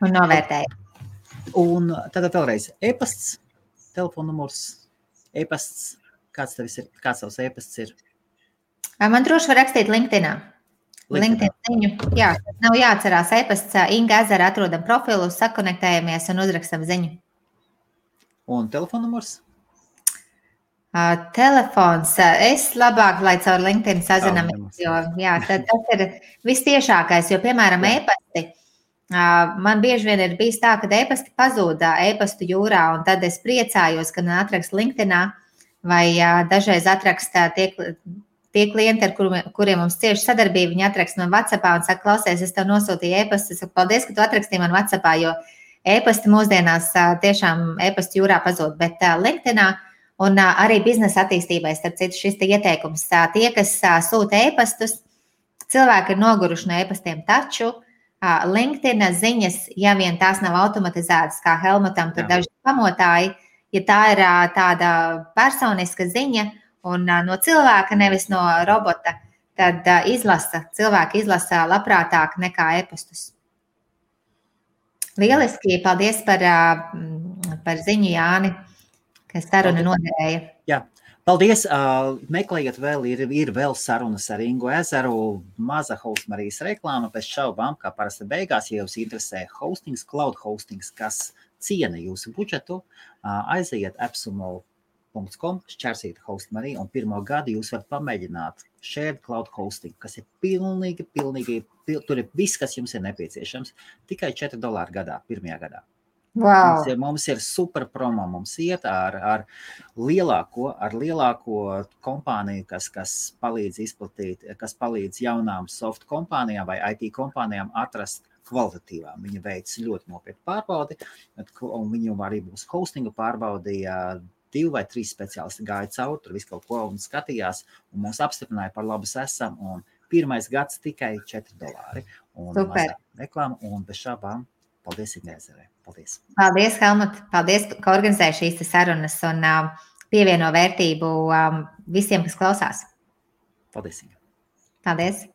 Un novērtēju. Un tad vēlreiz e-pasts. Telefonnumurs, e-pasts, kāds tavs e-pasts ir? Man droši var rakstīt LinkedInā. LinkedIn ziņu. Jā, nav jāatcerās e-pasts. Inga Ezera atrodam profilu, sakonektējamies un uzrakstam ziņu. Un telefonnumurs? Telefons. Es labāk, lai caur LinkedIn sazinamies, jo tas ir vistiešākais, jo, piemēram, e-pasti. Man bieži vien ir bijis tā, ka e-pasti pazūd e-pastu jūrā, un tad es priecājos, ka man atrakst LinkedInā, vai dažreiz atrakst tie klienti, ar kuriem mums cieši sadarbība, viņi atrakst man WhatsAppā un saka, klausies, es tev nosūtīju e-pastu, es saku, paldies, ka tu atrakstīji man WhatsAppā, jo e-pasti mūsdienās tiešām e-pastu jūrā pazūd, bet LinkedInā un arī biznesa attīstībai, starp citu, šis te ieteikums, tie, kas sūta e-pastus, cilvēki ir noguruši no e-pastiem, taču LinkedIn ziņas, ja vien tās nav automatizētas, kā Helmutam, tur daži pamotāji, ja tā ir tāda personiska ziņa un no cilvēka, nevis no robota, tad cilvēki izlasa labprātāk nekā e-pastus. Lieliski, paldies par ziņu, Jāni, kas saruna noderēja. Jā. Paldies! Meklējiet vēl, ir vēl sarunas ar Ingu Ezeru, maza Hostmarijas reklāma, pēc šaubām, kā parasti beigās, ja jūs interesē hostings, cloud hostings, kas ciena jūsu budžetu, aiziet appsumo.com, šķērsīt Hostmariju, un 1. gadu jūs varat pamēģināt shared cloud hosting, kas ir pilnīgi, tur ir viss, kas jums ir nepieciešams, tikai $4 gadā, 1. gadā. Wow. Mums ir super promo, mums iet ar lielāko kompāniju, kas palīdz izplatīt, kas palīdz jaunām soft kompānijām vai IT kompānijām atrast kvalitatīvām. Viņi veic ļoti nopietnu pārbaudi, un viņu arī būs hostingu pārbaudīja 2 vai 3 speciālisti gāja cauri, tur visu kaut ko un skatījās, un mūs apstiprināja par labas esam, un 1. gads tikai $4. Un super. Reklāma, un bez šābām. Paldies, Ingai Ezerei. Paldies. Paldies, Helmut. Paldies, ka organizēji šīs sarunas un pievieno vērtību visiem, kas klausās. Paldies, Inga. Paldies.